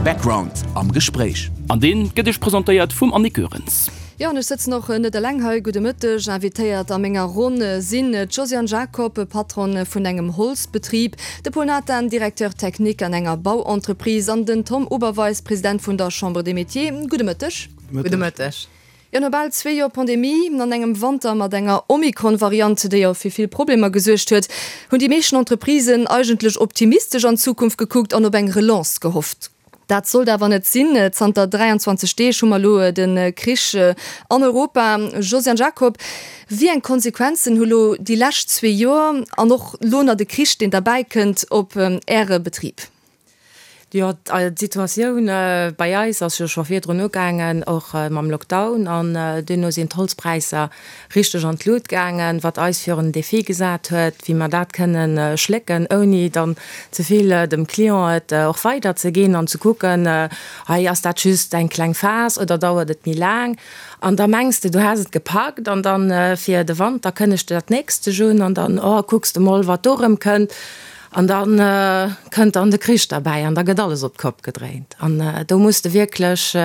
Background am Gespréich. An deen gëtt iech presentéiert vum Annick Goerens. Jo, an ech sëtzen och net eleng hei. Gudde Mëtteg. Invitéiert a menger Ronn sinn d'Josiane Jacob, Patronne vun engem Holzbetrib, de Paul Nathan, Directeur technique an enger Bauentreprise, an den Tom Oberweis, President vun der Chambre des Métiers. Gudde Mëtteg. Gudde Mëtteg. Jo, no bal zwee Joer Pandemie an engem Wanter mat enger Omikron-Variant, déi jo fir vill Problemer gesuergt huet, hunn déi meeschten Entreprisen eigentlech optimistesch an d'Zukunft gekuckt an op eng Relance gehofft. Dat sollt awer net sinn. Zanter 23 Deeg hu mer elo de Krich an Europa. Josiane Jacob, wéi eng Konsequenzen hu lo déi lescht zwee Joer an och lo nach de Krich, deen derbäi kënnt, op Äre Betrib? Jo, d'Situatioun bei eis ass jo scho virdrun ugaangen, och mam Lockdown. An duerno sinn d'Holzpräisser richteg an d'Lut gaangen, wat eis virun en Defi gesat huet, wéi mer dat kënnen schlécken, ouni dann ze vill dem Client et och weiderzeginn an ze kucken, hei ass dat just eng kleng Phas oder dauert et méi laang. An da mengs de, du häss et gepackt an dann fir de Wanter kënnegt de dat nächst sech un an dann, oh, kucks de mol, wat do erëm kënnt. An da kënnt dann de Krich derbäi an da gëtt alles op d'Kopp gedréint. An do muss de wierklech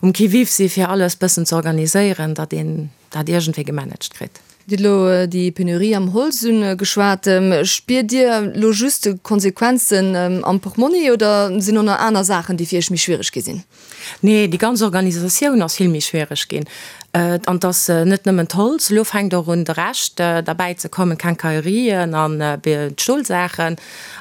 um Qui-vive si fir alles bëssen ze organiséieren, datt een dat iergendwéi gemanagt kritt. Dir hutt elo déi Penurie am Holz ugeschwat. Spiert Dir elo just d'Konsequenzen am Portmonni oder sinn och nach aner Saachen, déi fir Iech méi schwiereg gi sinn? Nee, déi ganz Organisatioun ass vill méi schwiereg ginn. An et ass net nëmmen d'Holz, elo fänkt och un de Rescht derbäi ze kommen, d'Quincaillerien an d'Stolsaachen.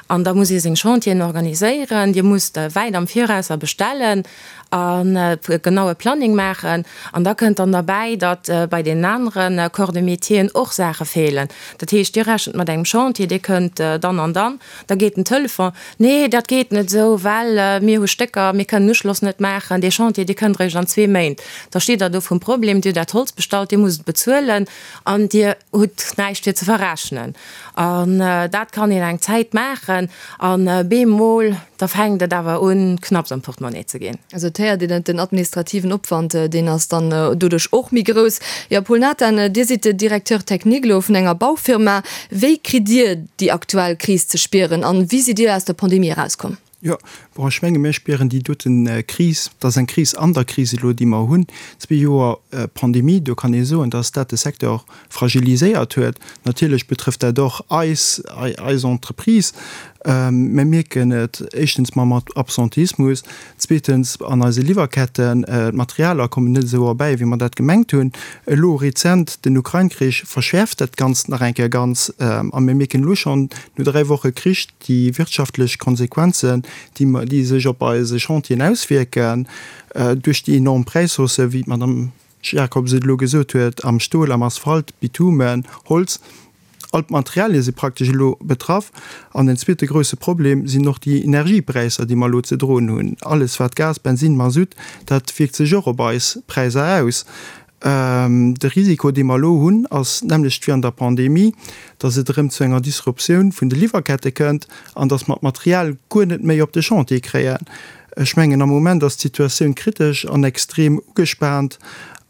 An da muss ee seng Chantieren organiséieren. Dir musst wäit am Virausser bestellen an e genaue Planning maachen. An da kënnt dann derbäi, datt bei deenen anere Corps de métieren och Saache feelen. Dat heescht, Dir rechent mat engem Chantier, dee kënnt dann an dann. Da geet den Telefon, Nee, dat geet net esou, well mir hu Stécker, mir kënnen Uschloss net maachen, dee Chantier, dee kënnt eréischt an zwee Méint. Da steet Der do vrum Problem, Dir hutt dat Holz bestallt, Dir musst et bezuelen an Dir hutt näischt fir ze verrechnen. An dat kann een eng Zäit maachen an bemol, da fänkt et awer un, knapps am Portemonnaie ze ginn. Also et héiert een et, den administrativen Opwand, deen ass dann doduerch och méi grouss. Jo, Paul Nathan, Dir sidd Directeur technique elo vun enger Baufirma. Wéi kritt Dir déi aktuell Kris ze spieren an wéi sidd Dir aus der Pandemie erauskomm? Jo, bon, ech menge mir spieren déi doten Kris, dat ass eng Kris an der Kris elo, déi mer hunn. Zwee Joer Pandemie, do kann ee soen, datt dat de Secteur fragiliséiert huet. Natierlech betrëfft dat och eis, eis Entreprise. Mir mierken et éischtens mam Absenteismus, zweetens an eise Liwwerketten, d'Materialer kommen net esou erbäi, wéi mer dat gemengt hunn. Elo rezent den Ukrain-Krich verschäerft dat Ganzt nach eng Kéier ganz. A mir mierken elo schonn no 3 Woche Krich déi wirtschaftlech Konsequenzen, déi sech op eise Chantieren auswierken, duerch déi enorm Präishausse, wéi d'Madame Jacobs et elo gesot huet, am Stol, am Asphalt, Bitumen, Holz. All d'Materialie si praktesch elo betraff. An en zweete grousse Problem sinn och déi Energiepräisser, déi mer elo ze droen hunn. Alles wat Gas, Bensin, Masutt, dat wierkt sech och op eis Präisser aus. De Risiko, dee mer elo hunn, ass d'nämmlecht wéi an der Pandemie, datt et erëm zu enger Disruptioun vun de Liwwerkette kënnt an datt mer d'Material guer net méi op de Chantier kréien. Ech mengen, am Moment ass d'Situatioun kritesch an extrem ugespaant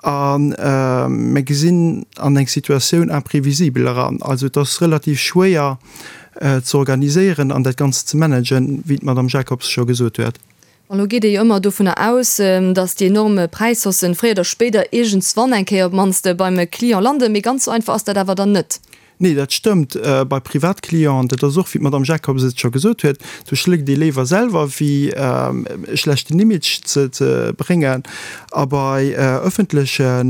a mir gesinn an eng Situatioun imprévisible eran. Also et ass relativ schwéier ze organiséieren an dat Ganzt ze managen, wéi d'Madame Jacobs scho gesot huet. An elo geet ee jo ëmmer dovunner aus, datt déi enorm Präishaussen fréier oder spéider iergendswann eng Kéier op d'mannst beim Client landen. Mee ganz esou einfach ass dat awer dann net. Nee, dat stëmmt. Bei Privatclienten, dat ass och, wéi d'Madame Jacobs et scho gesot huet, do schléckt ee léiwer selwer, wéi e schlechten Image ze bréngen. A bei ëffentleche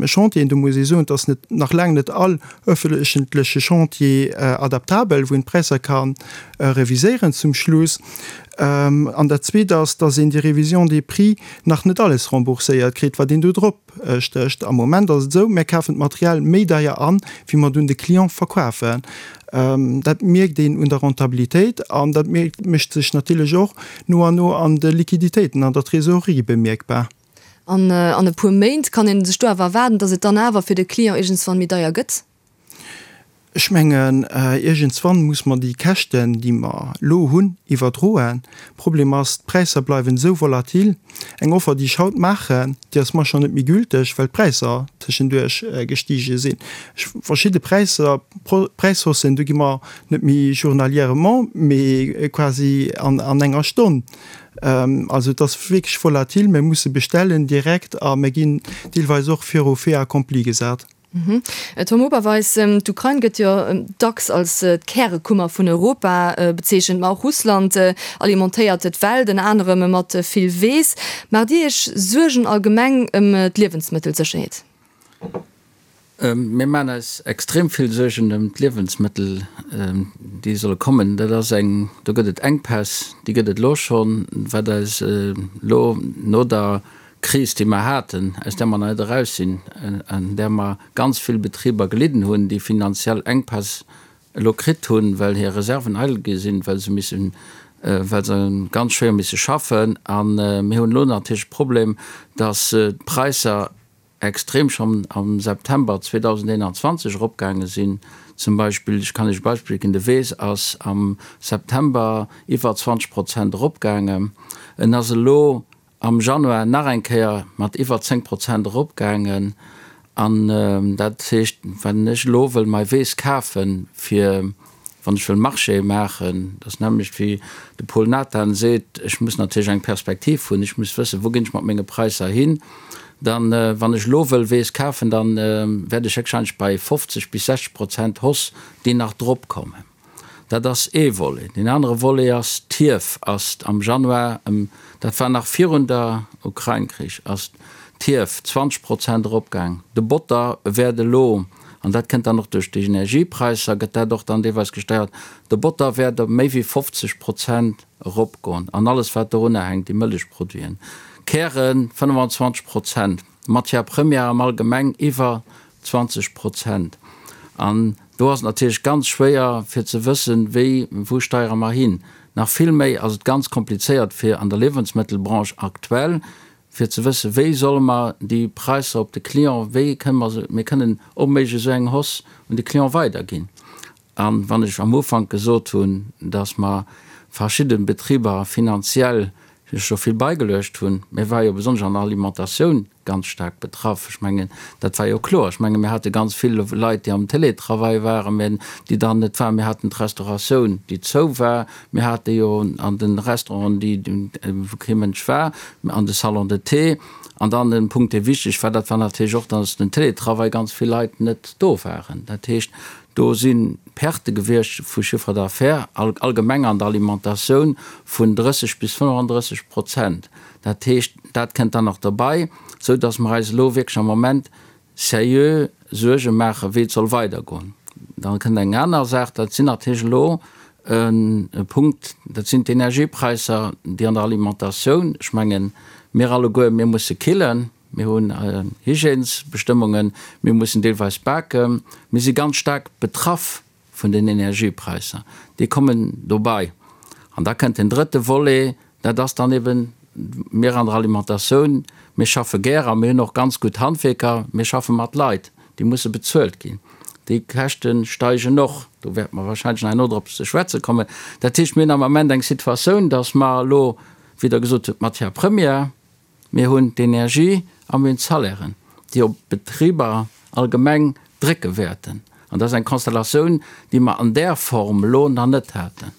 Chantieren, do muss ee soen, et ass net, nach laang net all ëffentleche Chantier adaptabel, wou een d'Präisser ka reviséieren zum Schluss. An dat Zweet ass, dass een déi Révision des prix nach net alles rembourséiert kritt, wat een do drop stécht. Am Moment ass et esou, mir kafen d'Material méi deier an, wéi mer et un de Client verkafen. Dat mierkt een un der Rentabilitéit an dat mécht sech natierlech och no an no an de Liquiditéiten, an der Trésorerie bemierkbar. An an e puer Méint kann ee sech do awer erwaarden, dass et dann awer fir de Client iergendswann méi deier gëtt? Ech mengen, iergendswann muss mer déi Käschten, déi mer elo hunn, iwwerdroen. Problem ass, d'Präisser bleiwen esou volatil. Eng Offer, déi ech haut maachen, déi ass mar schonn net méi gülteg, well d'Präisser tëschenduerch gestige sinn. Ech, verschidde Präisser, Präishaussen, do gi mer net méi journalièrement, mee quasi an enger Stonn. Also et ass wierklech volatil. Mir musse bestellen direkt a mir ginn deelweis och viru Fait accompli gesat. Tom Oberweis, d'Ukrain gëtt jo dacks als d'Kärekummer vun Europa bezeechent, ma och Russland alimentéiert d'Welt, ënner anerem mat vill Weess. Maacht Dir Iech Suergen allgemeng ëm d'Liewensmëttelsécherheet? Mir maachen eis extrem vill Suergen ëm d'Liewensmëttel, déi solle kommen. Dat ass eng, do gëtt et Enkpäss, déi gëtt et elo schonn, wat eis elo no der Kris, déi mer haten, aus där mer nach net eraus sinn, an där mer ganz vill Betriber gelidden hunn, déi finanziell Enkpäss elo kritt hunn, well hir Reserven eidel gi sinn, well se missen, well se ganz schwéier misse schaffen. A mir hunn elo natierlech de Problem, dass d'Präisser extrem schonn am September 2021 eropgaange sinn. Zum Beispill, ech kann Iech e Beispill ginn, de Weess ass am September iwwer 20 Prozent eropgaangen. En ass elo am Januar nach eng Kéier mat iwwer 10 Prozent eropgaangen. An dat heescht, wann ech elo wëll mei Weess kafen, fir wann ech wëll Marchéë maachen, dat ass d'nämmlecht wéi de Paul Nathan seet, ech muss natierlech eng Perspektiv hunn, ech muss wëssen, wou ginn ech mat menge Präisser hin, dann, wann ech elo wëll Weess kafen, da wäert ech héchstwahrscheinlech bei 50 bis 60 Prozent Hausse, déi nach drop kommen. Dat ass ee Volet. Deen anere Volet ass, d'Hief ass am Januar ëm, dat war nach virun der Ukrain-Krich, ass d'Hief 20 Prozent eropgaang. De Botter wäert elo, an dat kënnt dann och duerch déi Energiepräisser, gëtt dat och dann deelweis gesteiert, de Botter wäert ëm méi wéi 50 Prozent eropgoen an alles wat dorunner hänkt, déi Mëllechproduiten, Kären 25 Prozent. Matière première am Allgemeng iwwer 20 Prozent. An do ass et natierlech ganz schwéier fir ze wëssen, wéi, wou steiere mer hin. Nach vill méi ass et ganz komplizéiert fir an der Liewensmëttelbranche aktuell, fir ze wëssen, wéi solle mer déi Präisser op de Client, wéi kënne mer se, mir kënnen onméiglech esou eng Hausse un de Client weiderginn. A wann ech am Ufank gesot hunn, datt mer verschidde Betriber finanziell scho vill beigeluecht hunn, mir ware jo besonnesch an der Alimentatioun ganz staark betraff, ech mengen, dat war jo kloer. Ech menge mir hate ganz vill Leit, déi am Télétravail waren, mä déi dann net waren. Mir haten d'Restauratioun, déi zou war. Mir hate jo an de Restauranten, déi, wou kee Mënsch war, an de Salons de thé. An dann en Punkt, dee wichteg war, dat war natierlech och, datt den Télétravail ganz vill Leit net do waren. Dat heescht, Do si Perte gewiescht vu Chiffre d'affaires allgemeng an der Alimentatioun vun 30 bis 35 Prozent. Dat heescht, dat kënnt dann nach derbei, esou datt mer eis elo wierklech am Moment seriö Suerge maachen, wéi et soll weidergoen. Da kënnt eng aner Saach, dat sinn natierlech elo e Punkt, dat sinn d'Energiepräisser, déi an der Alimentatioun, ech mengen, mir alleguer, mir musse killen, Mir hunn Hygiènesbestëmmungen, mir mussen deelweis baken. Mir si ganz staark betraff vun den Energiepräisser. Déi kommen dobei. An da kënnt den drëtte Volet, dat ass dann eben, mir an der Alimentatioun, mir schaffe gär a mir hunn och ganz gutt Handwierker, mir schaffe mat Leit, déi musse bezuelt ginn. Déi Käschte steigen och. Do wäerte mer wahrscheinlech nach herno drop ze schwätze kommen. Dat heescht, mir hunn am Ament eng Situatioun, dass mer elo, wéi Der gesot hutt, d'Matière première, Mir hunn d'Energie a mir hunn d'Salairen, déi op d'Betriber allgemeng drécke wäerten. An dat ass eng Konstellatioun, déi mer an där Form elo nach net haten.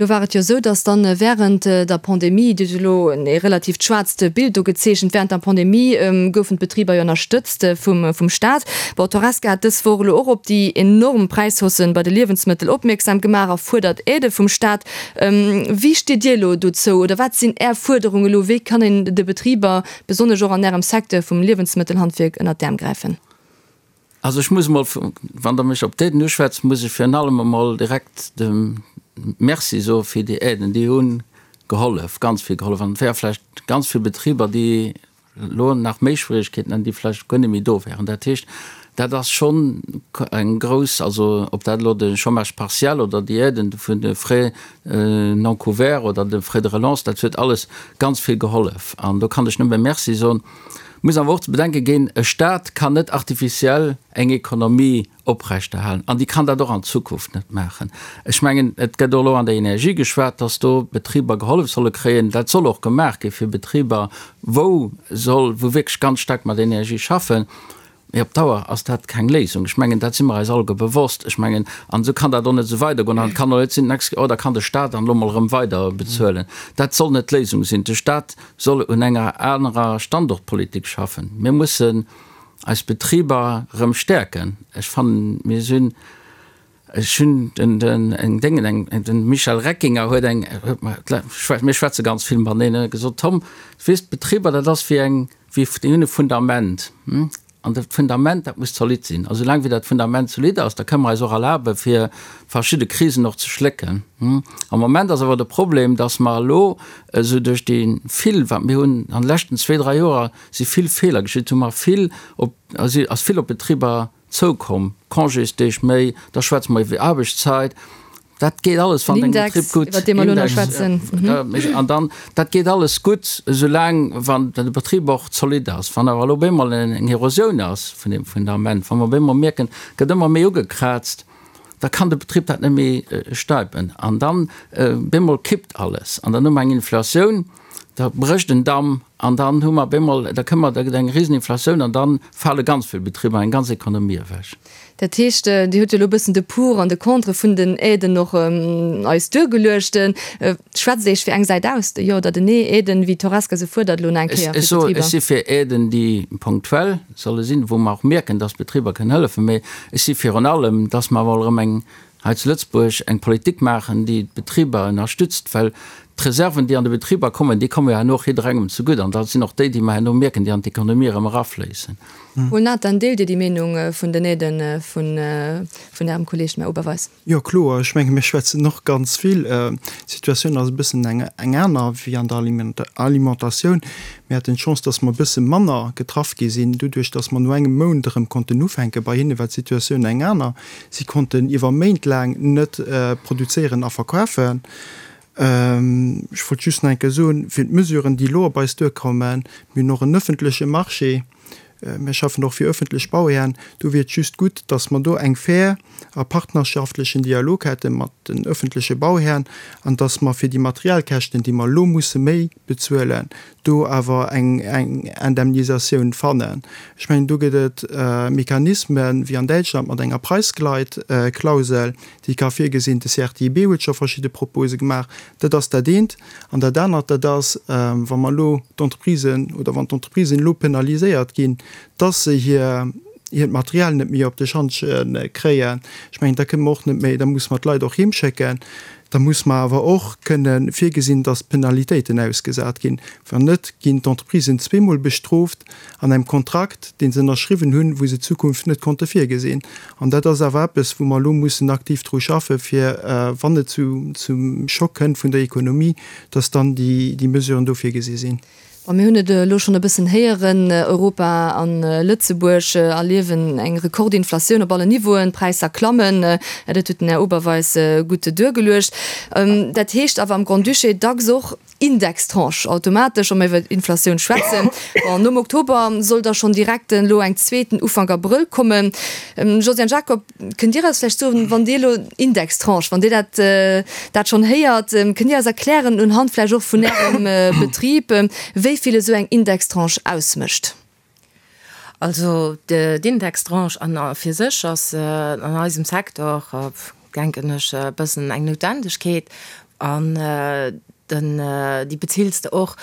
Elo war et jo esou, datt dann während der Pandemie, Dir hutt elo e relativt schwaarzt Bild do gezeechent, während der Pandemie goufen d'Betriber jo ënnerstëtzt vum Staat. Bon, d'Horesca hat dës Woch elo och op déi enorm Präishaussen bei de Liewensmëttel opmierksam gemaach a fuerdert Aidë vum Staat. Wéi steet Dir elo dozou oder wat sinn Är Fuerderungen elo? Wéi kann een de Betriber, besonnesch och an Ärem Secteur vum Liewensmëttelhandwierk, ënnert d'Äerm gräifen? Also ech muss emol, wann Der mech op d'Aiden uschwätzt, muss ech virun allem emol direkt de Merci soe fir déi Aiden. Déi hu gehollef, ganz vill gehollef. An et wäre vläicht ganz vill Betriber, déi elo nach méi Schwierigkeeten hätten, déi vläicht guer net méi do wären. Dat heescht, Dat ass schonn eng grouss, also ob dat elo de Chômage partiel oder déi Aiden vun de Frais non couverts oder de Frais de relance, dat huet alles ganz vill gehollef. An do kann ech nëmme Merci soen. Muss awer och ze bedenke ginn, e Stat kann net artificiell eng Ekonomie oprechterhalen an déi kann dat och an Zukunft net maachen. Ech mengen, et gëtt och elo an der Energie geschwat, dass do Betriber gehollef solle kréien. Dat soll och gemaach gi fir Betriber, wou soll, wou wierklech ganz staark mat Energie schaffen. Mee op Dauer ass dat keng Léisung. Ech mengen, dat si mer eis alleguer bewosst. Ech mengen, an esou kann dat och net esou weidergoen. An et kann och net sinn, d'nächst, oh, da kann de Stat dann elo mol erëm weider bezuelen. Dat soll net d'Léisung sinn. De Stat soll un enger anerer Standortpolitik schaffen. Mir mussen eis Betriber erëm stäerken. Ech fannen, mir sinn, ech hunn den, den, eng Déngen, eng, den Michel Reckinger huet eng, huet mer, mir schwätze ganz vill mateneen, huet gesot, Tom, weess, d'Betriber, dat ass wéi eng, wéi, déi hunn e Fundament. An dat Fundament, dat muss zolidd sinn. A soulaang wéi dat Fundament zolidd ass, da kënne mer eis och erlabe fir verschidde Krisen och ze schlécken. Am Moment ass awer de Problem, datt mer elo esou duerch déi vill, wat mir hunn an de leschten zwee, dräi Joer si vill Feeler geschitt, hu mer vill op, ass vill op d'Betriber zoukomm, Congésdeeg méi, da schwätze mer iwwer Aarbechtszeit. Dat geet alles, wann deng Betrib gutt, Index, iwwer dee mer elo nach schwätzen. An dann, dat geet alles gutt, esoulaang wann de Betrib och zolidd ass. Wann awer elo op eemol eng Erosioun ass vun deem Fundament, wa mer op eemol mierken, et gëtt ëmmer méi ugekraazt, da kann de Betrib dat net méi stäipen. An dann op eemol kippt alles. An dann hu mer eng Inflatioun, da brécht en Damm an dann hu mer op eemol, da kënne mer, da gëtt eng Riseninflatioun an da fale ganz vill Betriber, eng ganz Ekonomie ewech. Dat heescht, Dir hutt jo elo e bëssen de Pour an de Contre vun den Aiden och eis duergeluecht. Schwätzt Iech fir eng Säit aus, de Jo oder den Nee? Aiden, wéi d'Horesca se fuerdert elo nach eng Kéier fir d'Betriber? Ech si fir Aiden, déi ponktuell solle sinn, wou mer och mierken, dass d'Betriber kënnen hëllefen. Mee ech si virun allem, dass mer emol erëm eng hei zu Lëtzebuerg eng Politik maachen, déi d'Betriber ënnerstützt, well d'Reserven, déi an de Betriber kommen, déi komme jo herno och jidderengem zegutt an dat sinn och déi, déi mer herno mierken, déi an d'Ekonomie erëm erafléissen. Paul Nathan, Deelt Dir déi Meenung vun den Aiden vun Ärem Kolleeg, dem Här Oberweis? Jo, kloer. Ech menge mir schwätzen och ganz vill. D'Situatioun ass e bëssen eng aner wéi an der Alimentatioun. Mir haten d'Chance, datt mer e bësse manner getraff gi sinn, doduerch datt mer no engem Mount erëm konnten ufänken. Bei hinne war d'Situatioun eng aner. Si konnten iwwer Méint laang net produzéieren a verkafen. Ech wollt just nach eng Kéier soen, fir d'Mesuren, déi elo op eis duerkommen, mir hunn och en öffentleche Marché, mir schaffen och fir öffentlech Bauhären, do wier et just gutt, datt mer do eng fair a partnerschaftlechen Dialog hätte mat den öffentleche Bauhären an datt mer fir déi Materialkäschten, déi mer elo musse méi bezuelen, do awer eng Indemnisatioun fannen. Ech mengen, do gëtt et Mechanismen, wéi an Däitschland mat enger Preisgleitklausel, déi ka virgesinn. De CRTIB huet scho verschidde Propose gemaach. Dat ass dat eent. An dat anert, dat ass, wa mer elo d'Entreprisen oder wann d'Entreprisen elo penaliséiert ginn, dass se hir hiert Material net méi op de Schantje kréien. Ech mengen, da kënne mer och net méi, da musse mer d'Leit och heemschécken. Da muss mer awer och kënne virgesinn, dass Penalitéiten ausgesat ginn. Wann net, ginn d'Entreprisen zweemol bestrooft an engem Kontrakt, dee se ënnerschriwwen hunn, wou se d'Zukunft net konnte virgesinn. An dat ass awer eppes, wou mer elo mussen aktiv dru schaffen, fir, wann et zum Schock kënnt vun der Ekonomie, dass dann déi Mesuren do virgesi sinn. Bon, mir hunn et elo schonn e bëssen héieren, Europa a Lëtzebuerg erliewen eng Rekordinflatioun op allen Niveauen, d'Präisser klammen, dat huet den Här Oberweis gutt duergeluecht. Dat heescht awer am Grand-Duché dacks och Indextranche automatesch, wa mer iwwer Inflatioun schwätzen. Bon, nom Oktober soll da schonn direkt elo eng zweeten Ufank Abrëll kommen. Josiane Jacob, Kënnt Dir eis vläicht soen, wann Dir elo Indextranche, wann Dir dat, dat schonn héiert, kënnt Dir eis erklären, unhand vläicht och vun Ärem Betrib, wéi vill esou eng Indextranche ausmécht? Also d'Indextranche an a fir sech ass an eisem Secteur, denken ech, e bëssen eng Noutwendegkeet. An den, déi bezills de och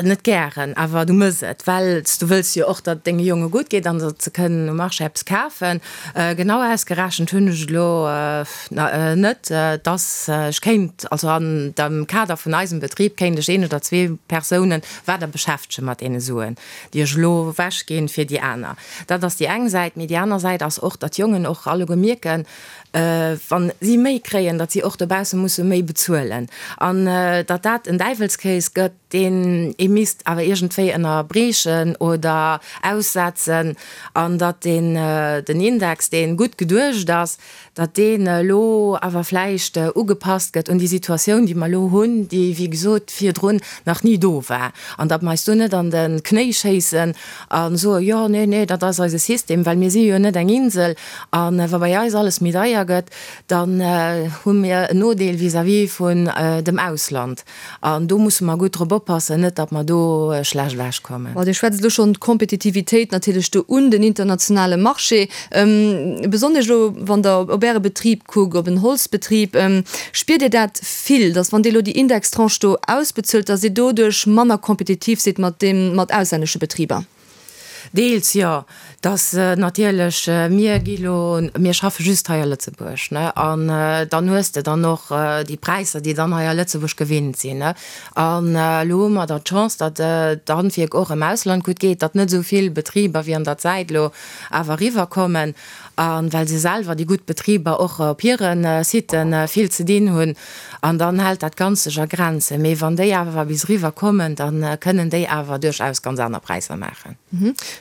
net gären, awer du mëss et, well s du wëlls jo och, datt et denge Jonge gutt geet an datt se kënnen um Marché eppes kafen. Genau ausgerechent hunn ech et elo net, dass ech kéint, also an dem Kader vun eisem Betrib kéint ech een oder zwee Persounen weider beschäftege mat deene Suen, déi ech elo ewechginn fir déi aner. Dat ass déi eng Säit. Mee déi aner Säit ass och, datt d'Jongen och alleguer mierken, wa si méi kréien, datt si och dobausse musse méi bezuelen an datt dat en Däiwelskéis gëtt, deen. deen ee misst awer iergendwéi ënnerbriechen oder aussetzen an datt deen, den Index, dee gutt geduecht ass, datt deen elo awer vläicht ugepasst gëtt un déi Situatioun, déi mer elo hunn, déi, wéi gesot, virdrun nach ni do war, an datt mer eis do net an de Knéi schéissen a soen, jo, nee, nee, dat ass eise System, well mir si jo net eng Insel a wa bei eis alles méi deier gëtt, dann hu mir en Nodeel vis-à-vis vun dem Ausland. An do musse mer gutt drop oppassen, net datt mer do schlecht ewechkommen. Bon, Dir schwätzt elo schonn d'Kompetitivitéit natierlech do un, den internationale Marché. Besonnesch elo, wann Der op Äre Betrib kuckt, op en Holzbetrib, spiert Dir dat vill, datt wann Dir elo déi Indextranche do ausbezuelt, datt Dir doduerch manner kompetitiv sidd mat deem, mat auslännesche Betriber? Deels jo. Dass natierlech, mir gi lo, mir schaffe just hei a Lëtzebuerg, ne, an dann hues de dann och déi Präisser, déi dann hei a Lëtzebuerg gewinnt sinn, ne. An elo hu mer dann d'Chance, datt d'Handwierk och am Ausland gutt geet, datt net esou vill Betriber wéi an der Zäit elo awer eriwwerkommen, a well se selwer, déi gutt Betriber, och op hire Sitë vill ze dinn hunn. An dann hält dat Ganzt sech a Grenzen. Mee wann déi awer bis eriwwer kommen, da kënnen déi awer duerchaus ganz aner Präisser maachen.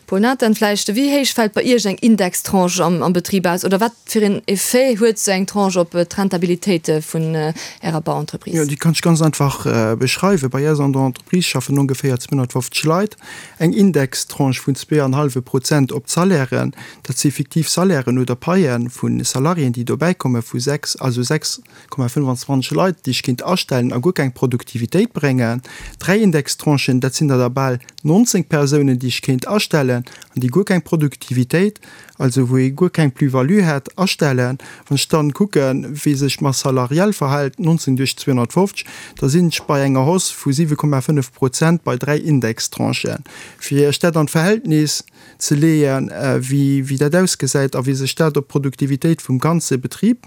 Paul Nathan, vläicht, Wéi héich fält bei Iech eng Indextranche am Betrib aus? Oder wat fir een Effet huet esou eng Tranche op d'Rentabilitéit vun Ärer Bauentreprise? Jo, déi kann ech ganz einfach beschreiwen. Bei eis an der Entreprise schaffen ongeféier 250 Leit. Eng Indextranche vun zweeanhallwe Prozent op d'Salairen, dat si fiktiv Salairen oder Paie vu Salariéen, déi dobäikomme vu 6, also 6,25 Leit, déi ech kéint astellen a guer keng Produktivitéit bréngen. Dräi Indextranchen, dat sinn der da bal 19 Persounen, déi ech kéint astellen an déi guer keng Produktivitéit, also wou ee guer keng Plus-value hätt, astellen. Wann ech dann kucken, wéi sech d'Masse salariale verhält, 19 duerch 250, da sinn ech bei enger Hausse vu 7,5 Prozent bei dräi Indextranchen. Fir Iech dat an d'Verhältnis ze leeën, wéi dat ausgesäit a wéi sech dat op d'Produktivitéit vum ganze Betrib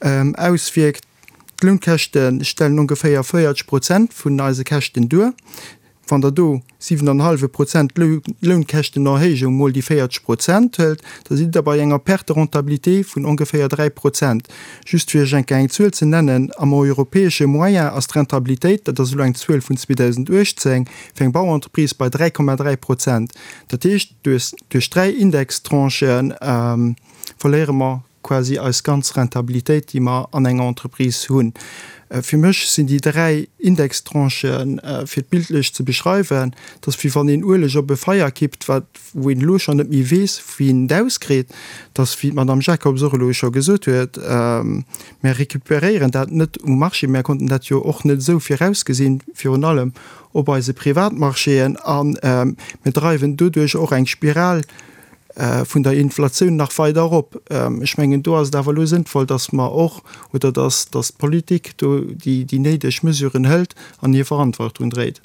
auswierkt, D'Lounkäschte stellen ongeféier 40 Prozent vun eise Käschten duer. Wann Der do 7 an e hallwe Prozent Lounkäschtenerhéijung mol déi 40 Prozent hëlt, da sidd Der bei enger Perte de rentabilité vun ongeféier 3 Prozent. Just fir Iech eng Kéier eng Zuel ze nennen, Am europäesche Moyen ass d'Rentabilitéit, dat ass elo eng Zuel vun 2018, fir eng Bauentreprise bei 3,3 Prozent. Dat heescht, duerch dräi Indextranchë verléiere mer quasi eis ganz Rentabilitéit, déi mer an enger Entreprise hunn. Fir mech sinn déi dräi Indextranchen, fir et bildlech ze beschreiwen, dat ass wéi wann een Ueleg op e Feier kippt, wat, wou een elo schonn net méi weess, wéi een et auskritt. Dat ass, wéi d'Madame Jacobs och elo scho gesot huet, mir recuperéieren dat net um Marché, mir konnten dat jo och net esou virausgesinn, virun allem op eise Privatmarchéen, a mir dreiwen doduerch och eng Spiral vun der Inflatioun nach weider erop. Ech mengen, do ass et awer elo sënnvoll, dass mer och, oder dass, dass d'Politik do déi, déi néideg Mesuren hëlt an hir Verantwortung dréit.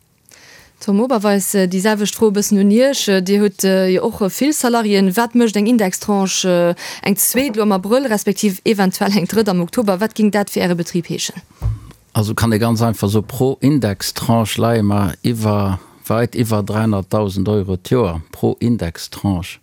Tom Oberweis, déi selwecht Fro e bëssen un Iech. Dir hutt jo och vill Salariéen. Wat mécht eng Indextranche, eng zweet elo am Abrëll, respektiv eventuell eng drëtt am Oktober, wat géing dat fir Äre Betrib heeschen? Also kann ee ganz einfach soen, pro Indextranche leie mer iwwer, weit iwwer 300.000 Euro d'Joer, pro Indextranche.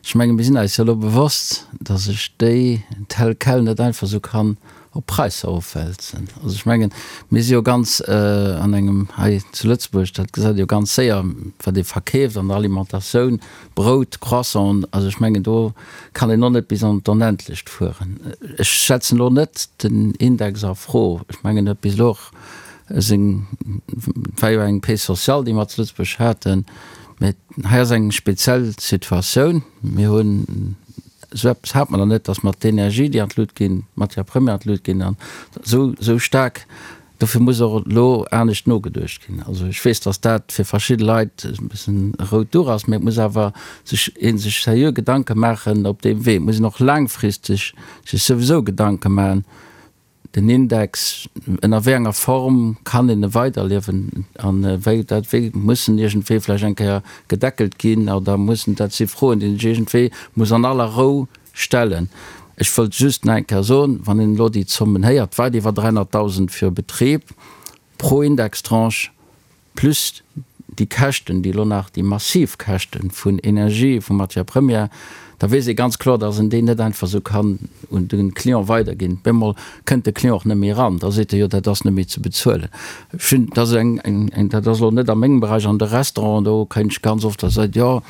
Ech menge mir sinn eis jo elo bewosst, datt ech déi tel quel net einfach esou kann op d'Präisser ofwälzen. Also ech mengen, mir si jo ganz an engem, hei zu Lëtzebuerg, dat gesäit ee jo ganz séier, wat ee verkeeft an der Alimentatioun, Brout, Croissanten, also ech mengen do kann een och net bis an d'Onendlecht fueren. Ech setzen elo net den Index a Fro. Ech mengen huet bis elo och seng, et war jo eng Paix sociale déi mer zu Lëtzebuerg haten, mä hei ass eng speziell Situatioun. Mir hunn, esou eppes hat mer nach net, datt mer d'Energie déi an d'Lut ginn, d'Matière première an d'Lut ginn an esou esou staark Dofir muss och elo anescht nogeduecht ginn. Also ech weess, datt dat fir verschidde Leit e bëssen e rout Duch ass, mä et muss awer sech ee sech seriö Gedanke maachen op deem Wee. Et muss een och laangfristeg sech souwisou Gedanke maachen, den Index, ënner wéi enger Form kann een e weiderliewen an wéi dat wéi muss en iergendwéi vläicht eng Kéier gedeckelt ginn oder muss en, dat si Froen, déi een sech iergendwéi muss an aller Rou Stellen. Ech wëllt just nach eng Kéier soen, wann een elo déi Zommen héiert, weit iwwer 300.000 fir e Betrib pro Indextranche plus. déi Käschten, déi elo nach, déi massiv Käschten vun Energie, vu Matières premières, da weess ee ganz kloer, dass en déi net einfach esou kann un de Client weiderginn. Bemol kënnt de Client och net méi eran, da seet e jo, dat ass net méi ze bezuelen. Ech hunn, dat ass eng, eng, dat ass elo net a mengem Beräich, an de Restauranten, do kréien ech ganz oft, da seet, jo,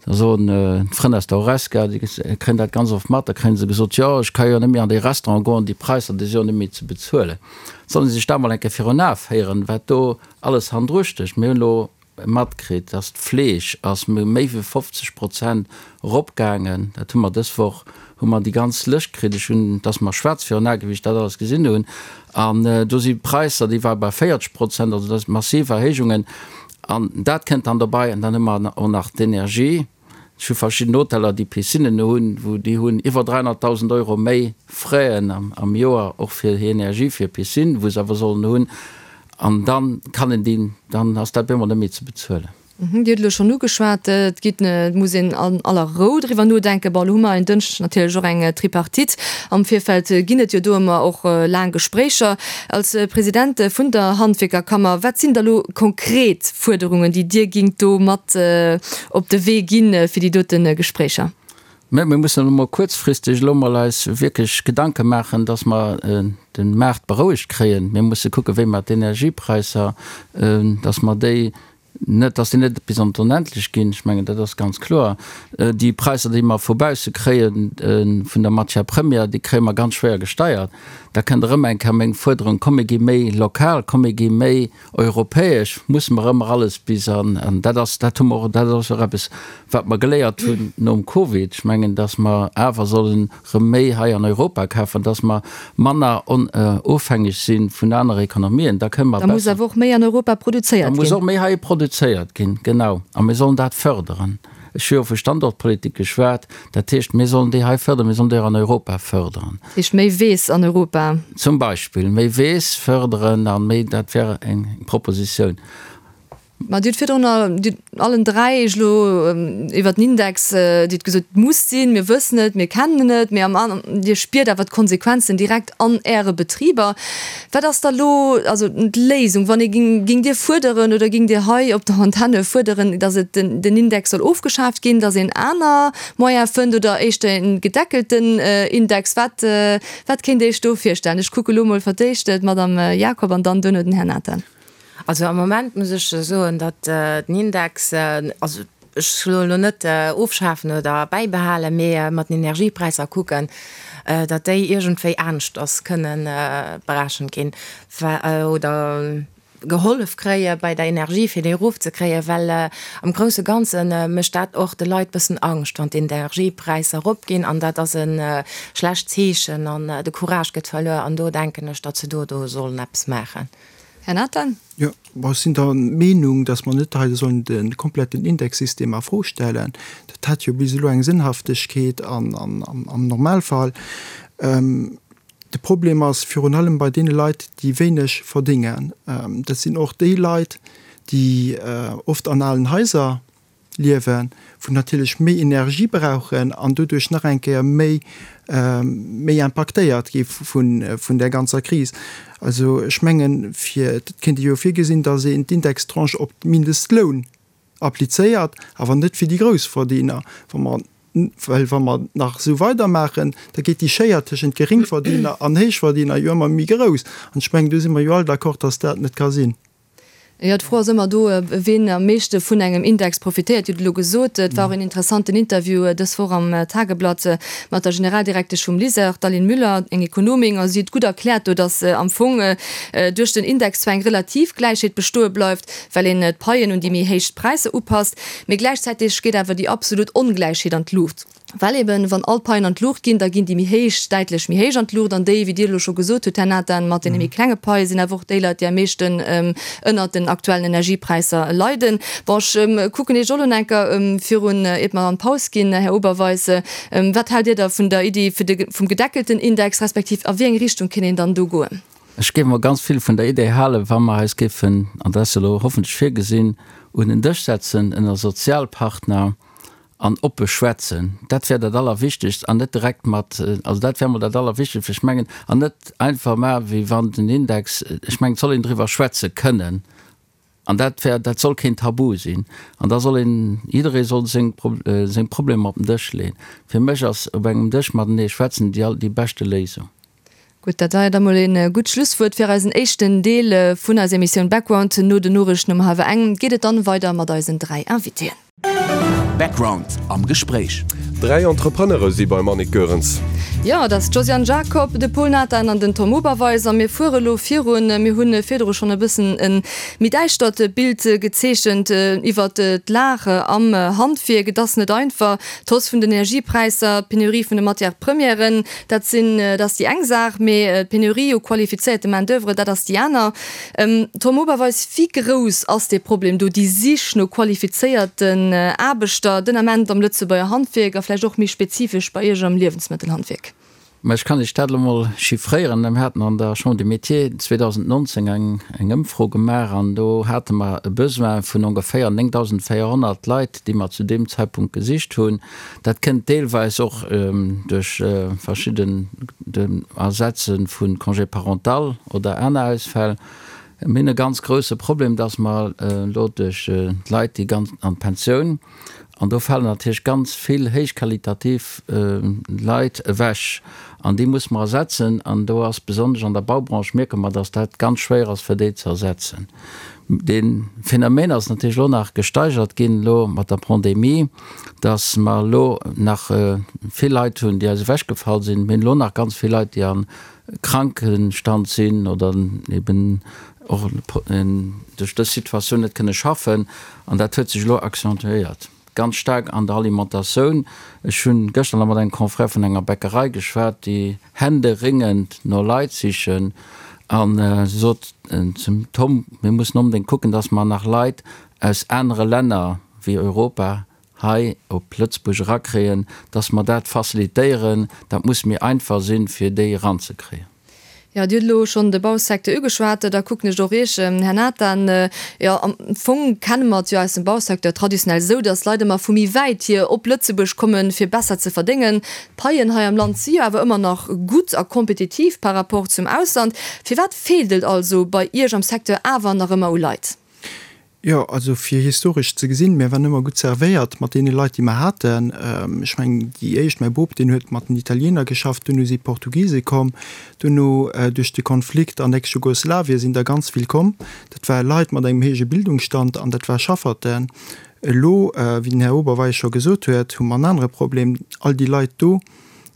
da soen d'Frënn aus der Horesca, déi kréien dat ganz oft mat, da kréie se gesot, jo, ech ka jo net méi an dee Restaurant goen, déi Präisser, déi si jo net méi ze bezuelen. Sollen se sech dat mol eng Kéier virun Ae féieren, wat do alles hannendru stécht. Mir hunn elo matkritt, dass d'Fleesch ass méi wéi 50 Prozent eropgaangen. Dat hu mer dës Woch hu mer déi ganz Lëscht kritt. Ech hunn, et ass mer schwaarz virun Ae wéi ech dat alles gesinn hunn. An do si Präisser, déi ware bei 40 Prozent, also dat si massiv Erhéijungen. An dat kënnt dann dobei. An dann hu mer och nach d'Energie. Ech hu verschidden Hoteller, déi Piscinnen hunn, wou déi hunn iwwer 300.000 Euro méi Fraisen am Joer och fir hir Energie, fir Piscine, wou se awer sollen hunn. An da kann een déi, dann ass dat bemol net méi ze bezuelen. Dir hutt elo schonn ugeschwat, et geet, et muss een an aller Rou driwwer nodenken. Bon, elo hu mer en Dënschdeg natierlech och eng Tripartite. Am Virfeld ginn et jo do ëmmer och laang Gespréicher. Als President vun der Handwierkerkammer, wat sinn da lo konkret Fuerderungen, déi Dir gingt do mat op de Wee ginn fir déi dote Gespréicher? Mä mir mussen elo mol kuerzfristeg elo mol eis wierklech Gedanke maachen, dass mer de Maart berouegt kréien. Mir musse kucken, wéi mer d'Energiepräisser, dass mer déi net, dass déi net bis an d'Onendlech ginn. Ech mengen, dat ass ganz kloer. Déi Präisser, déi mer vu bausse kréie vun der Matière première, déi kréie mer ganz schwéier gesteiert. Da kënnt erëm eng Kéier meng Fuerderung, Komm mir gi méi lokal, komm mir gi méi Europäesch musse mer ëmmer alles bis an, an dat ass, dat hu mer och, dat ass och eppes, wat mer geléiert hunn nom Covid. Ech mengen, datt mer awer sollen erëm méi hei an Europa kafen, datt mer manner ofhängeg si vun anere Ekonomien. Da kënne mer besser. Da muss awer och méi an Europa produzéiert ginn. Da muss och méi hei produzéiert ginn, genau. A mir sollen dat fërderen. Ech hu jo vu Standortpolitik geschwat. Dat heescht, mir sollen déi hei fërderen, mir sollen déi och an Europa fërderen. Dat heescht, méi Weess an Europa. Zum Beispill méi Weess fërderen a méi, dat wär eng Propositioun. Mä Dir hutt virdrun, Dir allen dräi Iech elo iwwert den Index, Dir hutt gesot, et muss sinn, mir wëssen et, mir kennen et, mee am, Dir spiert awer d'Konsequenzen direkt an Äre Betriber. Wat ass da lo also d'Léisung, wann ee ging, gingt Dir fuerderen oder gingt Dir hei op der Antenne fuerderen, datt et den, den Index soll ofgeschaaft ginn, datt een aner Moyen fënnt oder éischter en gedeckelten Index? Wat, wat kéint Dir Iech do virstellen? Ech kucke lo mol fir d'éischt d'Madame Jacob an dann duerno den Här Nathan. Also am Moment muss ech soen, datt den Index, also ech soe elo net ofschafen oder bäibehalen, mee mat den Energiepräisser kucken, datt déi iergendwéi aneschters kënne berechent ginn oder gehollef kréie bei der Energie, fir déi erofzekréien, well am grousse Ganze mécht dat och de Leit bëssen Angscht, wann d'Energiepräisser eropginn an dat ass e schlecht Zeechen an de Courage gëtt verluer an do denken ech, datt se do do sollen eppes maachen. Här Nathan. Jo, bon, ech sinn der Meenung, dass mer net hei sollen de kompletten Indexsystem a Fro stellen. Dat hat jo bis elo eng Sënnhaftegkeet an am Normalfall. De Problem ass virun allem bei deene Leit, déi wéineg verdéngen. Dat sinn och déi Leit, déi oft an alen Haiser liewen, wou natierlech méi Energie brauchen an doduerch nach eng Kéier méi méi impaktéiert gi vun vun där ganzer Kris. Also ech mengen, fir, et kéint ee jo virgesinn, datt een d'Indextranche op d'Mindestloun applizéiert, awer net fir déi Groussverdiener. Wa mer, well wa mer nach esou weidermaachen, da geet déi Schéier tëschent Geringverdiener an Héichverdiener jo ëmmer méi grouss. An ech mengen, do si mer jo all d'accord, datt dat net ka sinn. Jo, d'Fro ass ëmmer do, ween am meeschte vun engem Index profitéiert. Dir hutt et elo gesot, et war och een interessanten Interview dës Woch am Tageblatt mat der Generaldirektesch vum LISER, d'Aline Müller, eng Ekonomin, a si huet gutt erkläert do, datt am Fong duerch den Index zwar eng relativ Gläichheet bestoe bleift, well een d'Paien un déi méi héich Präisser upasst, mee gläichzäiteg geet awer déi absolut Ongläichheet an d'Luucht. Well eben, wann all d'Paien an d'Luucht ginn, da ginn déi méi héich däitlech méi héich an d'Luucht an déi, wéi Dir elo scho gesot hutt, Här Nathan, mat deene méi klenge Paie sinn awer och déi Leit, déi am meeschten ënnert den aktuellen Energiepräisser leiden. Bon, ech kucken Iech och elo nach eng Kéier virun, iert mer an d'Paus ginn, Här Oberweis, Wat haalt Dir da vun der Iddi fir de, vum gedeckelten Index, respektiv a wéi eng Richtung kéint een dann do goen? Ech géif mer ganz vill vun der Idee halen, wa mer eis géifen, an dat ass elo hoffentlech virgesinn, un en Dësch setzen ënner Sozialpartner, An oppe schwätzen, dat wär dat Allerwichtegst an net direkt mat, also dat wär emol dat Allerwichtegst, ech mengen, an net einfach maachen, wéi wann den Index, ech mengen, et soll een driwwer schwätze kënnen. An dat wär, dat soll keen Tabu sinn. An da soll een, jidderee soll seng, seng Problemer op den Dësch leeën. Fir mech ass op engem Dësch matenee schwätzen déi, déi beschte Léisung. Gutt, dat war jo da mol een gutt Schlusswuert fir eisen éischten Deel vun eiser Emissioun Background. No den Noriichten um hallwer eng geet et dann weider mat eisen 3 Invitéen. Background am Gespréich. 3 Entrepreneure si beim Annick Goerens. Jo, et ass d'Josiane Jacob, de Pol Nathan an den Tom Oberweis a mir fuere elo virun. Mir hu virdru schonn e bëssen e méi däischtert Bild gezeechent iwwert d'Lag am Handwierk. Et ass net einfach, d'Hausse vun den Energiepräisser, d'Penurie vun de Matières premièren, dat sinn, dat ass déi eng Saach, mee d'Penurie u qualifizéierte Main d'oeuvre, dat ass déi aner. Tom Oberweis, wéi grouss ass dee Problem do, déi Sich no qualifizéierten Aarbechter den Ament am Lëtzebuerger Handwierk a vläicht och méi spezifesch bei Iech am Liewensmëttelhandwierk? Mä ech kann Iech dat elo mol chiffréieren. Mir haten an der Chambre des Métiers 2019 eng Ëmfro gemaach an do hate mer e Besoin vun ongeféier 9.400 Leit, déi mer zu deem Zeitpunkt gesicht hunn. Dat kënnt deelweis och duerch verschidden Ersetze vu Congé parental oder aner Ausfäll. Mir hunn e ganz grouse Problem, dass mer elo duerch d'Leit, déi ganz an d'Pensioun, an do falen natierlech ganz vill héichqualitativ Leit ewech an déi musse mer ersetzen. An do ass besonnesch an der Baubranche mierke mer, dass dat ganz schwéier ass, fir déi ze ersetzen. Dee Phänomen ass natierlech elo nach gesteigert ginn elo mat der Pandemie, dass mer elo nach vill Leit hunn, déi eis ewechgefall sinn. Mir hunn elo nach ganz vill Leit, déi am Krankenstand sinn oder eben och duerch dës Situatioun net kënne schaffen. An dat huet sech elo accentuéiert ganz staark an der Alimentatioun. Ech hunn gëschter nach mat engem Confrère vun enger Bäckerei geschwat, déi händeringend no Leit sichen. A si sot zum Tom, mir mussen onbedéngt kucken, dass mer nach Leit aus anere Länner wéi Europa hei op Lëtzebuerg erakréien, dass mer dat facilitéieren. Dat muss méi einfach sinn, fir déi eranzekréien. Jo, Dir hutt elo schonn de Bausecteur ugeschwat. Da kucken ech och Iech, Här Nathan. Jo, am Fong kenne mer et jo aus dem Bausecteur traditionell esou, dass Leit ëmmer vu méi wäit hier op Lëtzebuerg kommen, fir besser ze verdéngen. D'Paien hei am Land si jo awer ëmmer nach gutt a kompetitiv par rapport zum Ausland. Firwat feelt et also bei Iech am Secteur awer nach ëmmer u Leit? Jo, also fir historesch ze gesinn, mir waren ëmmer gutt servéiert mat deene Leit, déi mer haten. Ech mengen, déi éischt, mäi Bop, deen huet mat den Italiener geschafft, duerno si Portugise komm, duerno duerch de Konflikt an Ex-Jugoslawien sinn der ganz vill komm. Dat ware Leit mat engem héije Bildungsstand an dat war Schafferten. Elo, wéi den Här Oberweis scho gesot huet, hu mer en anere Problem, All déi Leit do,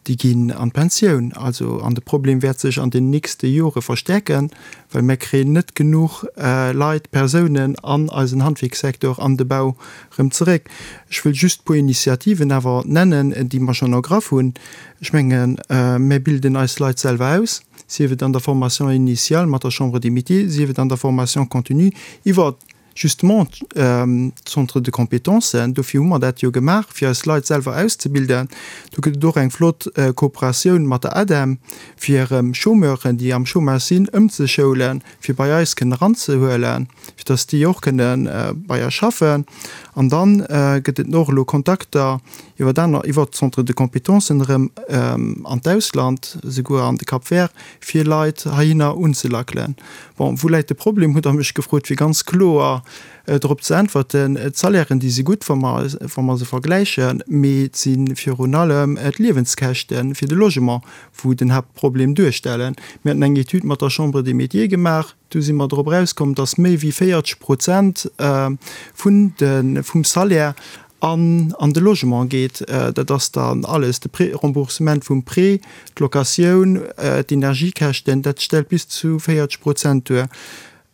déi ginn an d'Pensioun. Also, an de Problem wäert sech an den nächste Jore verstäerken, well mir kréien net genuch Leit, Persounen an eisen Handwierkssektor, an de Bau erëm zeréck. Ech wëll just e puer Initiativen awer nennen, déi mer schonn ergraff hunn. Ech mengen, mir bilden eis Leit selwer aus, sief et an der Formation initiale mat der Chambre des Métiers, sief et an der Formation continue iwwer Justement d'Centres de compétences, dofir hu mer dat jo gemaach, fir eis Leit selwer auszebilden. Do gëtt et och eng flott Kooperatioun mat der ADEM, fir erëm Chômeuren, déi am Chômage sinn, ëmzeschoulen, fir bei eis kënnen eranzehuelen, fir datt déi och kënne bei eis schaffen. An da gëtt et och elo Kontakter iwwer aner, iwwer d'Centres de compétences erëm an d'Ausland, esouguer an de Cap Vert, fir Leit heihinner unzelackelen. Bon, wou läit de Problem, hutt Der mech gefrot, fir ganz kloer drop ze äntwerten. D'Salairen, déi si gutt, wa mer, wa mer se vergläichen, mee et si virun allem d'Liewenskäschte fir de Logement, wou den Haaptproblem duerstellen. Mir haten eng Etüd mat der Chambre des Métiers gemaach, do si mer drop erauskomm, dass méi wéi 40 Prozent vun de, vum Salaire an an de Logement geet. Dat ass dann alles, de Prêt, Remboursement vum Prêt, d'Locatioun, d'Energiekäschten, dat stellt bis zu 40 Prozent duer.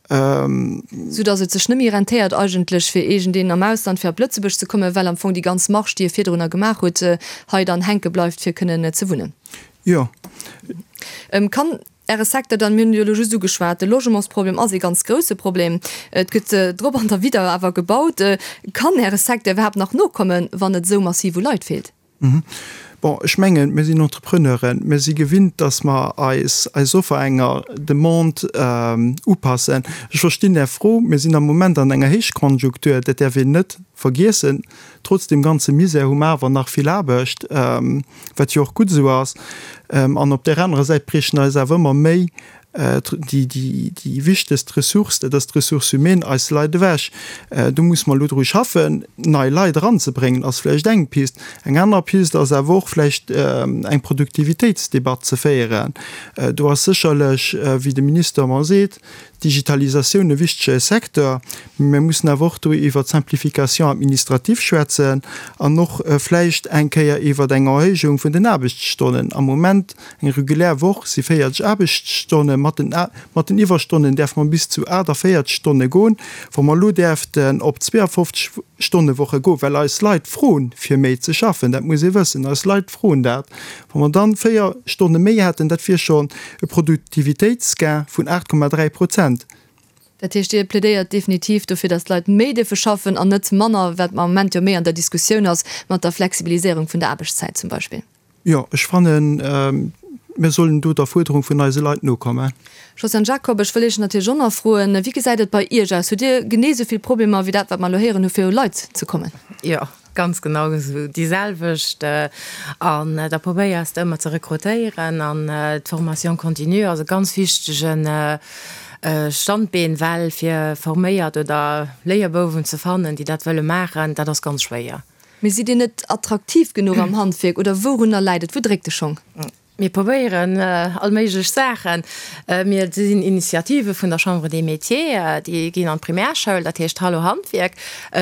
Sou datt et sech net méi rentéiert eigentlech fir iergendeen am Ausland fir op Lëtzebuerg ze kommen, well am Fong déi ganz Marge, déi e virdrunner gemaach huet, hei dann hänke bleift fir kënnen ze wunnen. Jo. Kann Äre Secteur dann, mir hunn et jo elo just ugeschwat, de Logementsproblem ass ee ganz grouse Problem, et gëtt drop an derwidder awer gebaut. Kann Äre Secteur iwwerhaapt nach nokommen, wann et esou massiv u Leit feelt? Bon, ech mengen, mir sinn Entrepreneuren, mir si gewinnt, datt mer eis eis Offer enger Demande upassen. Ech verstinn Är Fro. Mir sinn am Moment an enger Héichkonjunktur, dat däerf een net vergiessen. Trotz deem ganze Misär hu mer awer nach vill Aarbecht, wat jo och gutt esou ass. An op där anerer Säit briechen eis awer ëmmer méi. Déi wichtegst Ressource, dat ass d'Ressource humaine, eis Leit ewech. Do musse mer elo dru schaffen. Nei Leit eranzebréngen ass vläicht eng Pist. Eng aner Pist ass awer och vläicht eng Produktivitéitsdebatt ze féieren. Do ass sécherlech, wéi de Minister ëmmer seet, d'Digitalisatioun e wichtege Secteur. Mee mir mussen awer och do iwwert d'Simplification administrative schwätzen an och vläicht eng Kéier iwwert eng Erhéijung vun den Aarbechtsstonnen. Am Moment Eng regulär Woch si 40 Aarbechtsstonnen. Mat den mat den Iwwerstonnen däerfe mer bis zu 48 Stonne goen. Wa mer elo däerften op 52 Stonne-Woche goen, well eis Leit froen, fir méi ze schaffen, dat muss ee wëssen, eis Leit froen dat, wa mer dann 4 Stonne méi hätten, dat wier schonn e Produktivitéitsgain vun 8,3 Prozent. Dat heescht, Dir plädéiert definitiv dofir, datt d'Leit méi dierfe schaffen an net manner, wat am Moment jo méi an der Diskussioun ass, mat der Flexibiliséierung vun der Aarbechtszäit zum Beispill. Jo, ech fannen, mir sollen do der Fuerderung vun eise Leit nokommen. Josiane Jacob, Ech wëll Iech natierlech och nach froen, Wéi gesäit et bei Iech aus? Hutt Dir genee esou vill Problemer wéi dat, wat mer elo héieren hu fir u Leit ze kommen? Jo, ganz genau esou, déi selwecht. An da probéiers de ëmmer ze rekrutéieren an d'Formation continue ass e ganz wichtege Standbeen, well fir forméiert oder Léierbouwen ze fannen, déi dat wëlle maachen, dat ass ganz schwéier. Mee sidd Dir net attraktiv genuch am Handwierk oder wourunner läit et? Wou dréckt de Schong? Mir probéieren all méiglech Saachen. Mir sinn Initiative vun der Chambre des Métiers, déi ginn an d'Primärschoul, dat heescht Hallo Handwierk,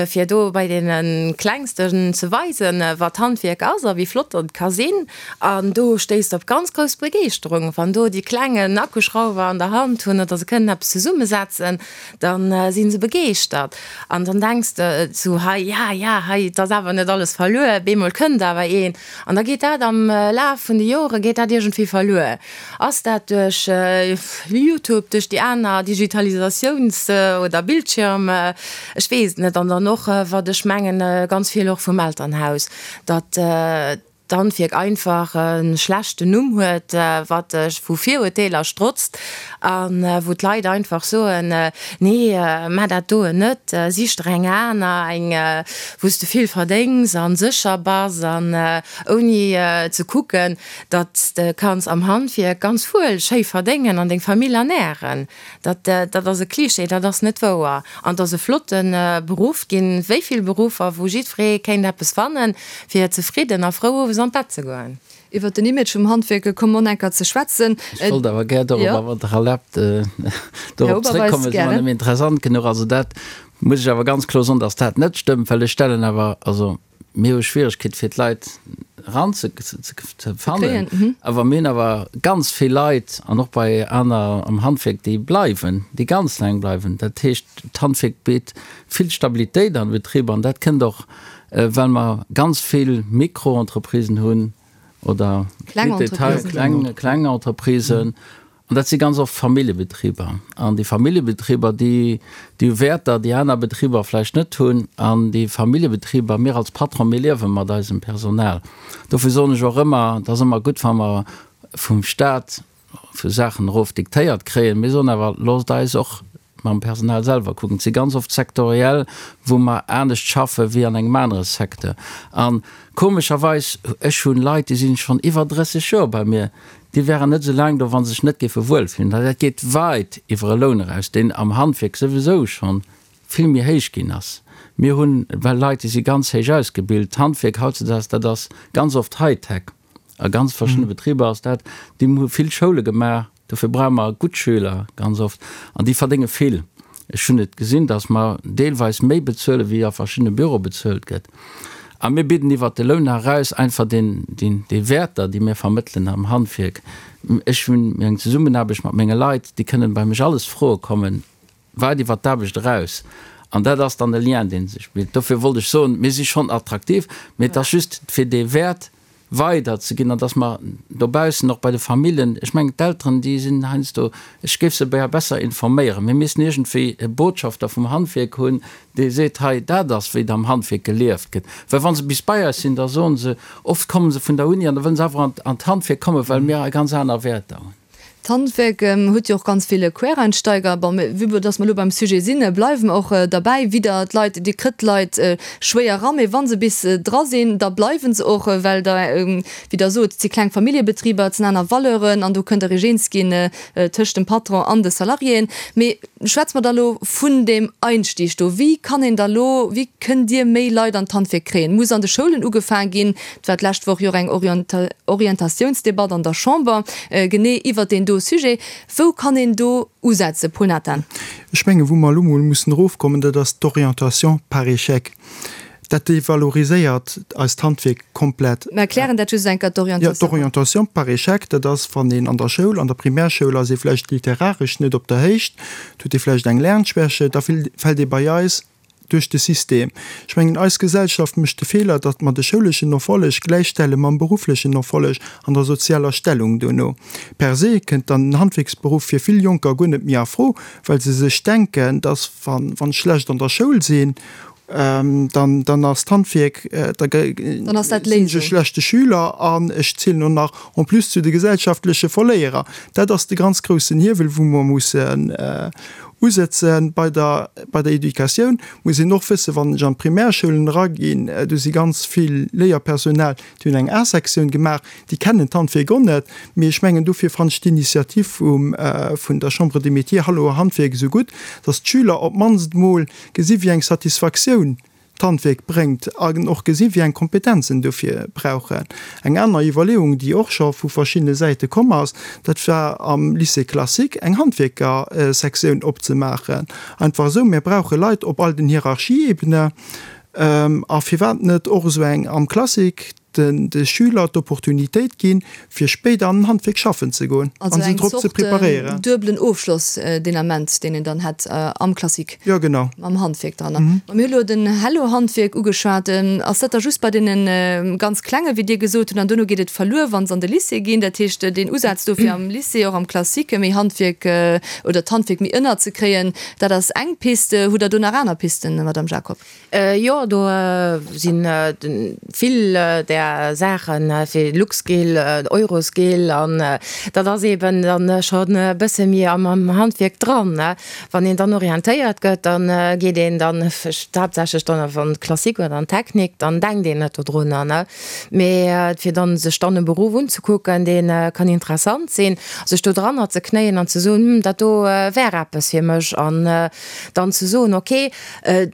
fir do bei deene Klengsten ze weisen, wat Handwierk ass a wéi flott et ka sinn. An do stéisst op ganz grouss Begeeschterung, wann do déi Kleng en Akkuschrauwer an der Hand hunn oder se kënnen eppes zesummesetzen. Dann sinn se begeeschtert an dann denks de sou, hei, ja, ja, hei, et ass awer net alles verluer, bemol kënnt awer een an da geet dat am Laf vun de Jore geet dat iergendwéi verluer. Ass dat duerch Youtube, duerch déi aner Digitalisatiouns oder Bildschirm, ech weess et net. An dann och, wat ech mengen, ganz vill och vum Elternhaus, datt d'Handwierk einfach e schlechten Numm huet, wat vu Virurteeler strotzt a wou d'Leit einfach soen, nee, maach dat doen net, sich der eng aner, eng wou s de vill verdéngs a sécher bass an ouni ze kucken, datt s de kanns am Handwierk ganz wuel schéi verdéngen an deng Famill ernären. Dat, dat ass e Klischee, dat ass net wouer. An et ass e flotte Beruff. Et ginn wéi vill Beruffer, wou jiddweree kéint eppes fannen, fir zefridden a frou owes an d'Bett ze goen. Iwwert den Image vum Handwierk komme mer enker ze schwätzen. Ech wollt awer gär dorobber, wann Der erlaabt, dorop zréckkommen. Et ass mer nëmme interessant genuch. Also dat muss ech awer ganz kloer soen, dass dat net stëmmt, well ech stellen awer, also Mir hu Schwieregkeet fir d'Leit eran ze fannen, awer mir hunn awer ganz vill Leit an och bei aner am Handwierk, déi bleiwen, déi ganz laang bleiwen. Dat heescht, d'Handwierk bitt vill Stabilitéit an de Betriber an dat kënnt och, well mer ganz vill Micro-Entreprisen hunn oder kleng Entreprisen. An dat si ganz oft Familljebetriber. An déi Familljebetriber, déi, déi hu Wäerter, déi aner Betriber vläicht net hunn. An déi Familljebetriber, mir als Patron, mir liewe mat eisem Personal. Dofir soen ech och ëmmer, et ass ëmmer gutt, wa mer vum Stat vu Saachen erof diktéiert kréien. Mir soen awer, Loosst eis och mam Personal selwer kucken. Et si ganz oft sektoriell, wou mer anescht schaffe wéi an engem anere Secteur. A komescherweis, ech hu Leit, déi si schonn iwwer 30 Joer bei mir, Déi wären net esou laang do, wa se sech net géife wuelfillen. Dat geet weit iwwer e Loun eraus, deen am Handwierk souwisou scho vill méi héich ginn ass. Mir hunn well Leit, déi si ganz héich ausgebilt. D'Handwierk hautzedaags, dat ass ganz oft Hightech. A ganz verschiddene Betriber ass dat. Déi hu vill Schoule gemaach, dofir brauche mer gutt Schüler ganz oft an déi verdénge vill. Ech hunn et gesinn, datt mer deelweis méi bezuele wéi a verschiddene Büroe bezuelt gëtt. A mir bidden iwwert de Loun eraus einfach deen, deen, déi Wäerter, déi mir vermëttelen am Handwierk. Ech hunn eng Zesummenaarbecht mat menge Leit, déi kënnen bei mech alles froe kommen, weit iwwert d'Aarbecht eraus. An dat ass dann e Lien, dee sech bilt. Dofir wollt ech soen, mir si schonn attraktiv, mee et ass just fir dee Wäert weider ze ginn an dass mer dobaussen och bei de Famillen, ech mengen d'Elteren, déi sinn heiansdo, ech géif se beier besser informéieren, mir missten iergendwéi e Botschafter vum Handwierk hunn, dee seet, hei dat ass wéi et am Handwierk gelieft gëtt. Well wa se bis bei eis sinn, da soen se, oft komme se vun der Uni an da wëllen se awer an d'Handwierk kommen, well mir ganz aner Wäerter hunn. D'Handwerk huet jo och ganz vill Quereinsteiger. Bon, mä vue dass mer elo beim Sujet sinn, bleiwe mer och derbäi. Widder d'Leit, Dir kritt d'Leit schwéier eran, mä wa se bis dra sinn, da bleiwe se och, well der, wéi Der sot, et si kleng Familljebetriber, et sinn aner Valeuren an do kënnt Der Iech eens ginn tëscht dem Patron an de Salariéen. Mee schwätze mer da elo vun deem Einstieg do. Wéi kann een da elo, wéi kënnt Dir méi Leit an d'Handwierk kréien? Muss an de Schoulen ugefaang ginn? Et war d'lescht Woch jo och eng Orientatiounsdebatt an der Chamber genee iwwert deen do Sujet. Wou kann een do usetzen, Paul Nathan? Ech mengen, wou mer elo mol mussen erofkommen, dat ass d'Orientation par échec. Dat devaloriséiert eist Handwierk komplett. Mer erklären dat just eng Kéier, d'Orientation. Jo, d'Orientation par échec, dat ass, wann een an der Schoul, an der Primärschoul ass ee vläicht literaresch net op der Héicht, huet ee vläicht eng Lernschwäche, da fält ee bei eis duerch de System. Ech mengen, eis Gesellschaft mécht de Feeler, datt mer de schouleschen Erfolleg gläichstelle mam berufflechen Erfolleg an der sozialer Stellung duerno. Per se kënnt dann den Handwierksberuff fir vill Jonker guer net méi a Fro, well se sech denken, datt wann ech schlecht an der Schoul sinn, dann dann ass d'Handwierk, da sinn ech e schlechte Schüler an ech zielen och nach en plus zu de gesellschaftleche Verléierer. Dat ass de ganz groussen Hiewel, wou mer mussen Usëtzen. Bei der, bei der Educatioun muss een och wëssen, wann ech an d'Primärschoulen eraginn, do si ganz vill Léierpersonal, déi hunn eng A-Sektioun gemaach, déi kennen d'Handwierk och net. Mee ech mengen, dofir fannen ech d'Initiativ vum, vun der Chambre des Métiers Hallo Handwierk esou gutt, dass d'Schüler op d'mannst emol gesi wéi eng Satisfaktioun d'Handwierk bréngt an och gesinn, wéi eng Kompetenzen dofir brauchen. Eng aner Iwwerleeung, déi och scho vu verschiddene Säite komm ass, dat war am Lycée classique eng Handwierkersektioun opzemaachen. Einfach esou, mir brauche Leit op all den Hierarchieebene a firwat net och esou eng am Classique, de Schüler d'Opportunitéit ginn, fir spéider an den Handwierk schaffen ze goen a se drop ze preparéieren. Also eng Zort duebelen Ofschloss deen Ament, deen een dann hätt am Classique. Jo, genau. Mam Handwierk dran. Ma mir hu lo den Hello-Handwierk ugeschwat. Ass dat da just bei deene ganz Klenge wéi Dir gesot hutt, an duerno geet et verluer, wa se an de Lycée ginn? Dat heescht, deen Usaz do fir am Lycée, och am Classique méi Handwierk oder d'Handwierk méi ënnerzekréien, dat ass eng Piste. Hutt Der do nach aner Pisten, Madame Jacob? Jo, do si vill där Saachen, fir Luxscale, Euroscale, an dat ass eeben dann schonn e bësse méi am Handwierk dran. Wann een dann orientéiert gëtt, da geet een dann haaptsächlech dann an d'Klassik oder an d'Technik, dann denkt een net dodrunner, ne. Mee fir dann sech dann e Beruff unzekucken, dee kann interessant sinn, sech do dranner ze knéien an ze soen, hm, dat do wär eppes fir mech an dann ze soen, okay,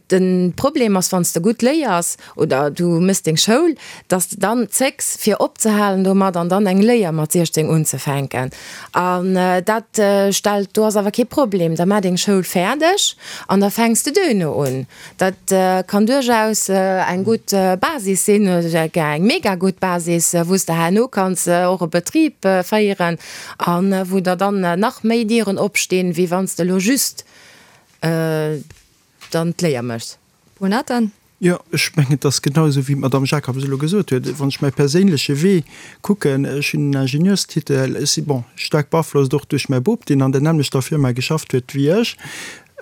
De Problem ass, wann s de gutt léiers oder du méchs deng Schoul, dass de dann zécks fir opzehalen domat an dann eng Léier mat 16 unzefänken. An dat stellt, do ass awer kee Problem, da maach deng Schoul fäerdeg an da fänks de duerno un. Dat kann duerchaus eng gutt Basis sinn, eng mega gutt Basis, wou s de herno kanns och e Betrib féieren a wou der dann nach méi Dieren opstinn, wéi wann s de elo just dann d'Léier méchs. Paul Nathan. Jo, ech mengen, et ass genau esou, wéi d'Madame Jacobs elo gesot huet. Wann ech mäi perséinleche Wee kucken, ech hunn en Ingenieurstitel, ech si, bon, staark beaflosst och duerch mäi Bop, deen an der nämmlechter Firma geschafft huet wéi ech.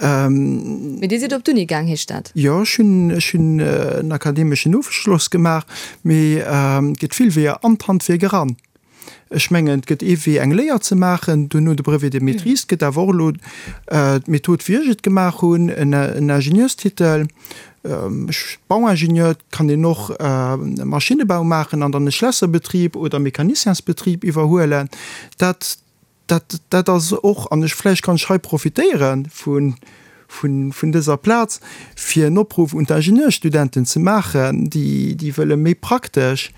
Mee Dir sidd op d'Uni gaang, heescht dat? Jo, ech hunn, ech hunn en akademeschen Ofschloss gemaach, mee et gëtt vill Weeër an d'Handwierk eran. Ech mengen, et gëtt ee Wee, eng Léier ze maachen, duerno de Brevet de maîtrise. Et gëtt awer och elo d'Method, wéi ech et gemaach hunn, en Ingenieurstitel, Bauingenieur. Et kann een och Maschinnebau maachen an dann e Schlässerbetrib oder Mecaniciensbetrib iwwerhuelen. Dat, dat, dat ass och, an ech, vläicht kann ech hei profitéiere vun, vun dëser Plaz, fir en Opruff un d'Ingenieurstudenten ze maachen, déi, déi wëlle méi praktesch,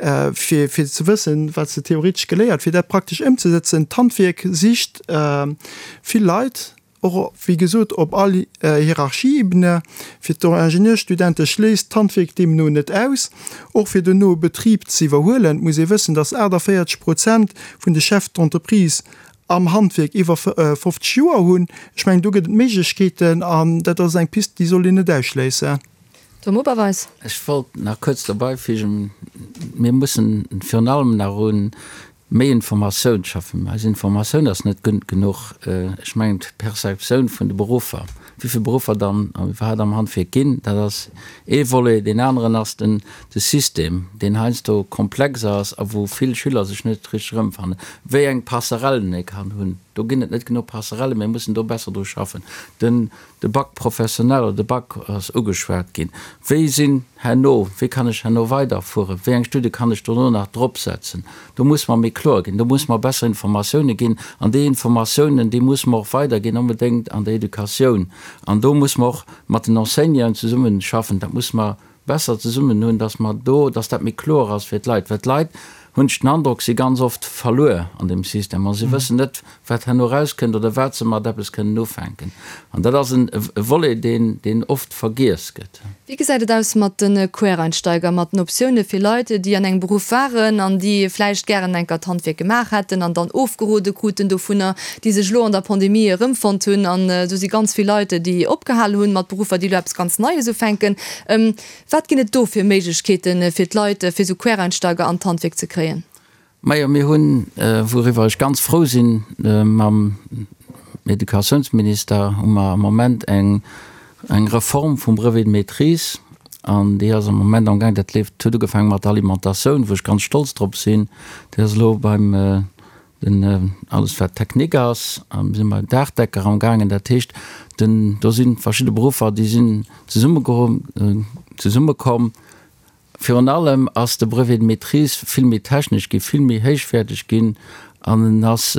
fir, fir ze wëssen, wat se theoretesch geléiert, fir dat praktesch ëmzesetzen. D'Handwierk sicht vill Leit, och, wéi gesot, op all Hierarchieebene. Fir d'Ingenieurstudente schléisst d'Handwierk deemno net aus. Och fir dono e Betrib ze iwwerhuelen, muss ee wëssen, dass 48 Prozent vun de Chefs d'entreprise am Handwierk iwwer 50 Joer hunn. Ech mengen, do gëtt et Méiglechkeeten an dat ass eng Pist, déi soll een net ausschléissen. Tom Oberweis. Ech wollt nach kuerz derbeifügen, Mir mussen virun allem nach u méi Informatioun schaffen. Eis Informatioun ass net gutt genuch. Ech mengen, d'Perceptioun vun de Beruffer. Wéi vill Beruffer dann iwwerhaapt am Handwierk ginn, dat ass ee Volet. Deen aneren ass den de System, deen heiansdo komplex ass a wou vill Schüler sech net richteg erëmfannen. Wéi eng Passerellen ee kann hunn, do ginn et net genuch Passerellen, mir mussen do besser dru schaffen. Den De Bac professionnel oder de Bac ass ugeschwat ginn. Wéi sinn herno, wéi kann ech herno weiderfueren, wéi eng Studie kann ech dono nach dropsetzen? Do muss mer méi kloer ginn, do muss mer besser Informatiounen ginn an déi Informatiounen, déi muss mer och weiderginn, onbedéngt an der Educatioun. An do muss mer och mat den Enseignanten zesummeschaffen, dat muss mer besser zesummen hunn, dass mer do, dass dat méi kloer ass fir d'Leit, well d'Leit, hunn ech den Androck, si ganz oft verluer an deem System a si wëssen net, wat herno erauskënnt oder wat se mat eppes kënnen ufänken. An dat ass e Volet, deen, deen oft vergiess gëtt. Wéi gesäit et aus mat de Quereinsteiger, mat den Optioune fir Leit, déi an engem Beruff waren an déi vläicht gären enker d'Handwierk gemaach hätten an dann ofgerode kruten dovunner, déi sech elo an der Pandemie erëmfonnt hunn? An do si ganz vill Leit, déi opgehal hunn mat Beruffer, déi elo eppes ganz Neies ufänken. Wat ginn et do fir Méiglechkeeten, fir d'Leit, fir esou Quereinsteiger an d'Handwierk ze kréien? Majo, mir hunn, wouriwwer ech ganz frou sinn, mam Educatiounsminister hu mer am Moment eng Reform vum Brevet de maîtrise an déi ass am Moment amgaang. Dat leeft, huet ugefaange mat der Alimentatioun, wou ech ganz stolz drop sinn. Déi ass elo beim Den, alles wat Technique ass, si mer Daachdecker am gaangen. Dat heescht, den, do si verschidde Beruffer, déi sinn zesummekomm. Virun allem ass de Brevet de maîtrise vill méi technesch ginn, vill méi héichwäerteg ginn an en ass,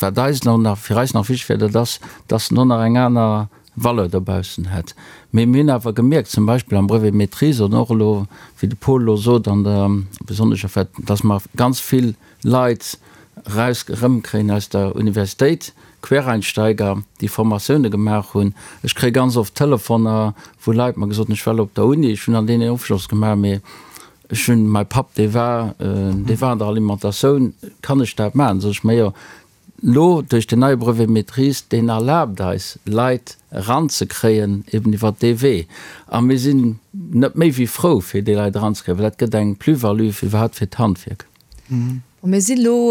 wat eis elo nach, fir eis nach wichteg wär, dat ass, dass en och nach eng aner Valeur dobaussen hätt. Mee mir hunn awer gemierkt, zum Beispill am Brevet de maîtrise oder och elo, wéi de Paul elo sot, an der besonnesch, dass mer ganz vill Leit eraus erëmkréien aus der Universitéit, Quereinsteiger, déi Formatioune gemaach hunn. Ech kréie ganz oft Telefoner, wou Leit mer gesot hunn, ech war elo op der Uni, ech hunn an deenen Ofschloss gemaach, mee ech hunn, mäi Papp, dee war, dee war an der Alimentatioun, kann ech dat maachen? Sot ech, majo, elo duerch den neie Brevet maîtrise, deen erlaabt eis, Leit eranzekréien, eben iwwert dee Wee. A mir sinn net méi wéi frou, fir déi Leit eranzekréien, well dat gëtt eng Plus-value fir iwwerhaapt fir d'Handwierk. Bon, mir si lo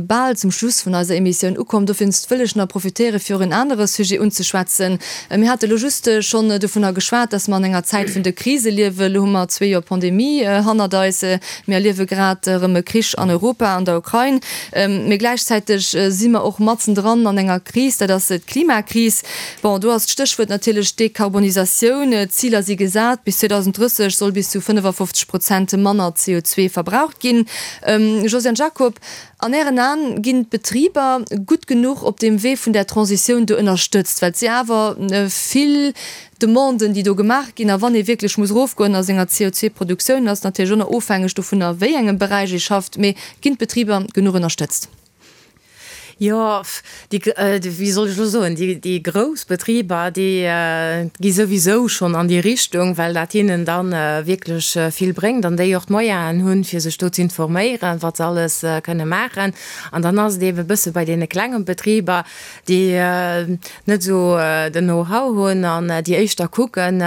bal zum Schluss vun eiser Emissioun ukomm. Dowéinst wëll ech nach profitéiere fir och en anere Sujet unzeschwätzen. Mir hate lo just schonn dovunner geschwat, dass mer an enger Zäit vun de Krise liewen. Lo hu mer zwee Joer Pandemie hannert eis. Mir erliewe grad erëm e Krich an Europa, an der Ukrain. Mee gläichzäiteg si mer och matzendran an enger Kris, dat ass d'Klimakris. Bon, do ass d'Stéchwuert natierlech Dekarbonisatioun. D'Ziler si gesat, bis 2030 soll bis zu 55 Prozent manner CO2 verbraucht ginn. Josiane Jacob, an Ären Aen, ginn d'Betriber gutt genuch op deem Wee vun där Transitioun do ënnerstëtzt? Well et si awer vill Demanden, déi do gemaach ginn. A wann ee wierklech muss erofgoen a senger CO2-Produktioun, ass natierlech och nach ofhängeg dovunner, a wéi engem Beräich ee schafft. Mee ginn d'Betriber genuch ënnerstëtzt? Jo, déi, wéi soll ech elo soen, déi, déi grouss Betriber, déi gi souwisou schonn an déi Richtung, well dat hinnen da wierklech vill bréngt an déi och d'Moyenen hunn, fir sech do z'informéieren, wat se alles kënne maachen. An dann ass et eebe bësse bei deene klenge Betriber, déi net esou den Know-how hunn an déi éischter kucken,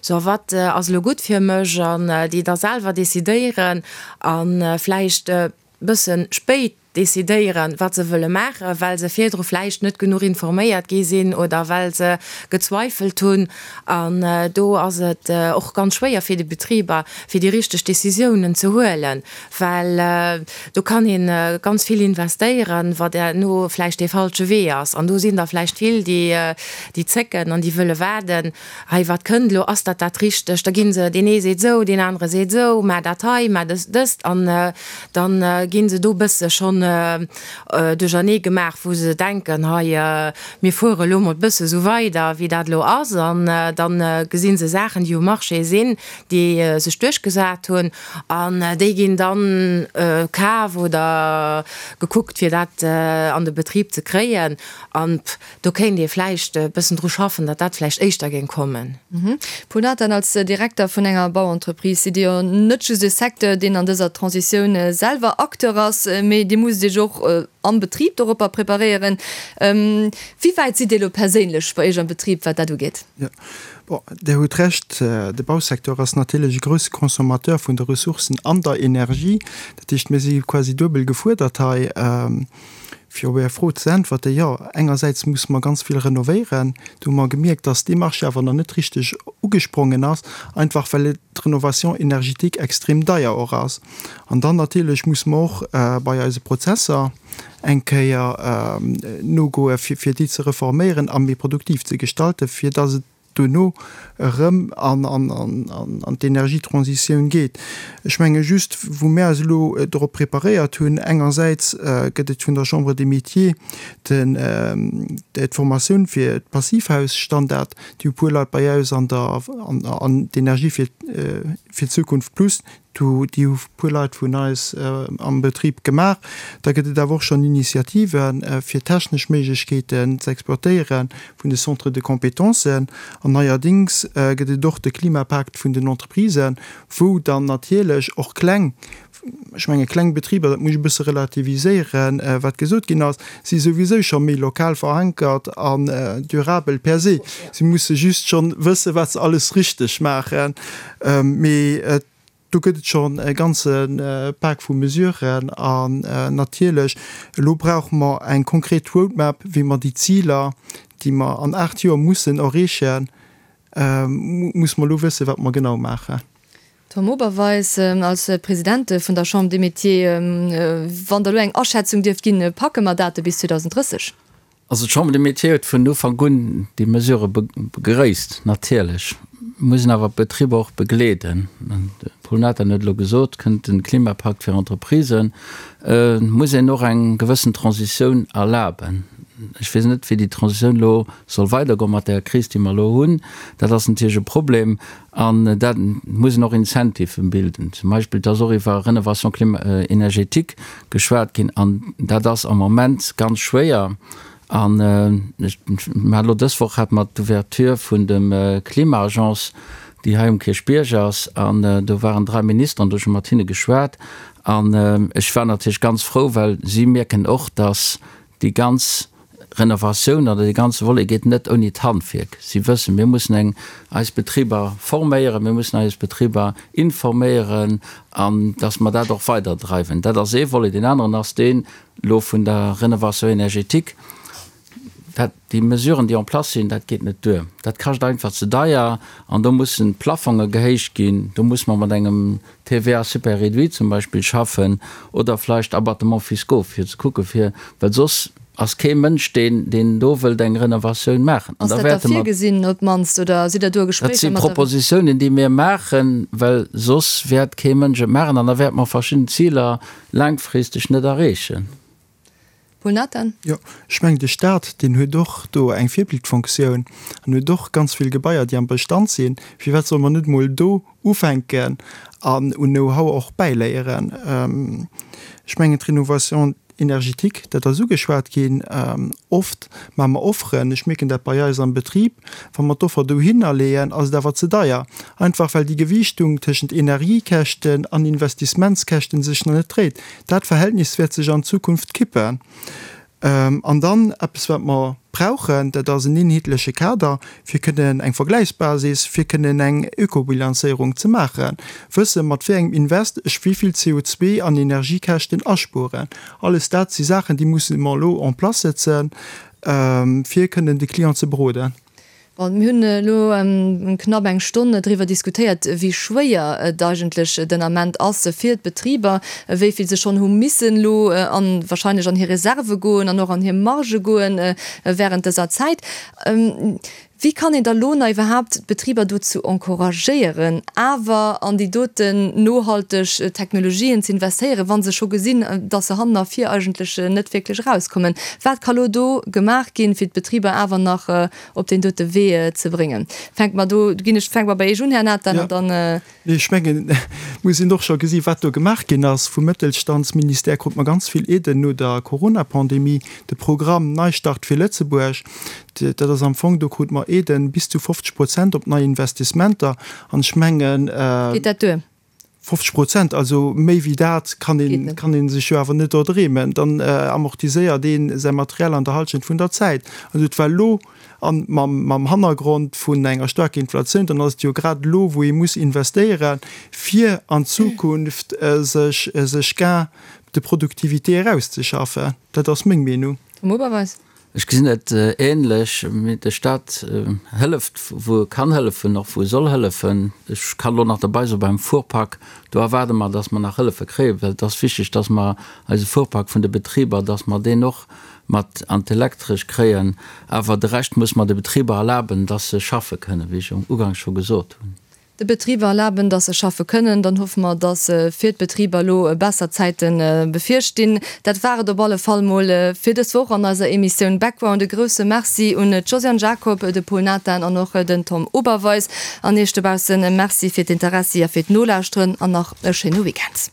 sou wat ass elo gutt fir mech an déi da selwer decidéieren a vläicht bësse spéit decidéieren, wat se wëlle maachen, well se virdru vläicht net genuch informéiert gi sinn oder well se gezweifelt hunn. An do ass et och ganz schwéier fir déi Betriber, fir déi richteg Décisiounen ze huelen, well do kann ee ganz vill investéieren, wat herno vläicht dee falsche Wee ass. An do sinn der vläicht vill, déi zécken an déi wëlle waarden, Hei, wat kënnt elo? Ass dat dat Richtegt? Da gi se, deen ee seet esou, deen anere seet esou, maach dat hei, maach dës, dëst. An da gi se do e bësse schonn duerchernee gemaach, wou se denken, hei, mir fuere elo mol e bësse esou weider, wéi dat elo ass. An da gesi se Saachen, déi um Marché sinn, déi sech duerchgesat hunn, an déi ginn dann kaf oder gekuckt, fir dat an de Betrib ze kréien. An Do kéint ee vläicht e bëssen dru schaffen, datt dat vläicht éischter géing kommen. Paul Nathan, als Direkter vun enger Bauentreprise sidd Dir jo net just e Secteur, deen an dëser Transitioun selwer Acteur ass, mee Dir musst Iech och am Betrib doropper preparéieren. Wéi wäit sidd Dir elo perséinlech bei Iech am Betrib, wat dat ugeet? Jo, bon, Dir hutt Recht, de Bausecteur ass natierlech e grousse Consommateur vun de Ressourcen an der Energie. Dat heescht, mir si quasi duebel gefuerdert hei. Fir op Är Fro ze äntwerten, Jo, engersäits musse mer ganz vill renovéieren. Do hu mer gemierkt, dass dee Marché awer nach net richteg ugesprongen ass, einfach well d'Rénovation énergétique extrem deier och ass. An dann natierlech musse mer och bei eise Prozesser eng Kéier nogoe fir déi ze reforméieren a méi produktiv ze gestalten, fir dass et duerno erëm an d'Energietransitioun geet. Ech menge just, wou mir eis elo dorop preparéiert hunn, engersäits gëtt et vun der Chambre des Métiers d'Formatioun fir d'Passivhausstandard, déi hu puer Leit bei eis an der an d'Energie fir d'Zukunft plus, Do, déi hu puer Leit vun eis am Betrib gemaach. Da gëtt et awer och schonn Initiativen, fir technesch Méiglechkeeten ze exploitéiere vun de Centres de compétences. An neierdéngs gëtt et och de Klimapakt vun den Entreprisen, wou dann natierlech och kleng, ech menge kleng Betriber, dat muss ech e bësse relativiséieren, wat gesot ginn ass, si souwisou scho méi lokal verankert an durabel per se. Si musse just schonn wëssen, wat se alles richteg maachen. Mee do gëtt et schonn e ganze Pak vu Mesuren. An natierlech, elo brauche mer eng konkret Roadmap, wéi mer déi Ziler, déi mer an 8 Joer mussen erreechen, musse mer elo wëssen, wat mer genau maachen. Tom Oberweis, als President vun der Chambre des Métiers, wann Der elo eng Aschätzung dierft ginn, packe mer dat bis 2030? Also d'Chambre des Métiers huet vun Ufank un déi Mesure begréisst. Natierlech muss een awer d'Betriber och begleeden. De Paul Nathan huet elo gesot, kënnt de Klimapakt fir Entreprisen, muss een och eng gewëssen Transitioun erlaben. Ech weess net, wéi déi Transitioun elo soll weidergoen mat där Kris, déi mer elo hunn. Dat ass natierlech e Problem. An dat muss een och Incentiven bilden. Zum Beispill, et ass och iwwer Rénovation énergétique geschwat ginn an dat ass am Moment ganz schwéier. An ech, mir haten elo dës Woch hate mer d'Ouverture vun dem Klima-Agence, déi hei um Kierchbierg ass, an do waren drai Ministeren, do hu ech mat hinne geschwat an ech war natierlech ganz frou, well si mierken och, dass déi ganz Renovatioun oder dee ganze Volet geet net ouni d'Handwierk. Si wëssen, mir mussen eng eis Betriber forméieren, mir mussen eis Betriber informéieren an dass mer dat och weiderdreiwen. Dat ass ee Volet. Deen aneren ass deen elo vun der Rénovation énergétique. Dat, déi Mesuren, déi en place sinn, dat geet net duer. Dat kascht einfach ze deier an do mussen d'Plafonge gehéicht ginn. Do muss mer mat engem TVA super réduit zum Beispill schaffen oder vleicht Abattements fiscaux fir ze kucke fir, well soss ass kee Mënsch deen deen do wëllt eng Renovatioun maachen. An da Ass dat da wäerte mer. virgesinn op d'mannst oder sidd Der do a Dat Gespréicher si mat der. Propositiounen déi mir maachen, well soss wäert kee Mënsch et maachen an da wäerte mer verschidden Ziler laangfristeg net erreechen. Paul Nathan. Jo, ech mengen de Stat, deen huet och do eng Virbildfunktioun an huet och ganz vill Gebaier, déi am Bestand sinn. Firwat solle mer net emol do ufänken an un Know-how och bäiléieren? Ech mengen d'Rénovation énergétique, dat ass ugeschwat ginn. Oft maache mer Offeren, ech mierken dat bei eis am Betrib, wa mer d'Offer dohinner leeën, ass et awer ze deier, einfach well déi Gewiichtung tëschent Energiekäschten an Investissementskäschten sech nach net dréit. Dat Verhältnis wäert sech an Zukunft kippen. An dann eppes, wat mer brauchen, dat ass en eenheetleche Kader, fir kënnen eng Vergläichsbasis, fir kënnen eng Ökobilanzéierung ze maachen, wësse mat wéi engem Invest ech wéi vill CO2 an Energiekäschten aspueren. Alles dat si Saachen, déi musse mer elo en place setzen, fir kënnen de Client ze beroden. Bon, mir hunn elo knapp eng Stonn driwwer diskutéiert, wéi schwéier et eigentlech den Ament ass fir d'Betriber, wéi vill se schonn hu missen elo an wahrscheinlech an hir Reserve goen an och an hir Margë goen während dëser Zäit. Wéi kann een da lo nach iwwerhaapt d'Betriber dozou encouragéieren, awer an déi doten nohalteg Technologien ze investéieren, wa se scho gesinn, datt se hannen a vir eigentlech net wierklech erauskommen? Wat ka lo do gemaach ginn, fir d'Betriber awer nach op deen dote Wee ze bréngen. Fänke mer do, ginn ech, fänke mer bei Iech un, Här Nathan, an dann. Nee, ech mengen, et muss een och scho gesi wat do gemaach ginn ass. Vum Mëttelstandsministère krute mer ganz vill Aiden no der Coronapandemie. De Programm Neistart fir Lëtzebuerg, dat ass am Fong, do krute mer Aiden bis zu 50 Prozent op nei Investissementer. An ech mengen. Geet dat duer? 50 Prozent, also méi wéi dat kann een, kann ee sech jo awer net erdreemen. Dann amortiséiert ee säi Material an der Halschent vun der Zäit. Also et war elo, a mam, mam Hannergrond vun enger staarker Inflatioun, dann ass et jo grad elo, wou ee muss investéieren, fir an Zukunft sech, sech Gain. de productivité erauszeschaffen. Dat ass meng Meenung. Tom Oberweis. Ech gesinn et ähnlech. De Staat hëlleft, wou e kann hëllefen, och wou e soll hëllefen. Ech kann elo nach derbei soen, beim Fuhrpark, do erwaarde mer, dass mer nach Hëllefe kréien, well et ass wichteg, dass mer eise Fuhrpark vun de Betriber, dass mer deen och mat an d'Elektresch kréien. Awer de Rescht muss mer de Betriber erlaben, dass se schaffe kënnen, wéi ech uganks scho gesot hunn. De Betriber erlaben, dass se schaffe kënnen, dann hoffe mer, dass fir d'Betriber elo besser Zäite bevirstinn. Dat war et op alle Fall mol fir dës Woch an eiser Emissioun Background. E grousse Merci un d'Josiane Jacob, de Pol Nathan an och den Tom Oberweis. An Iech dobausse Merci fir d'Interessi a fir d'Nolauschteren an nach e schéine Weekend.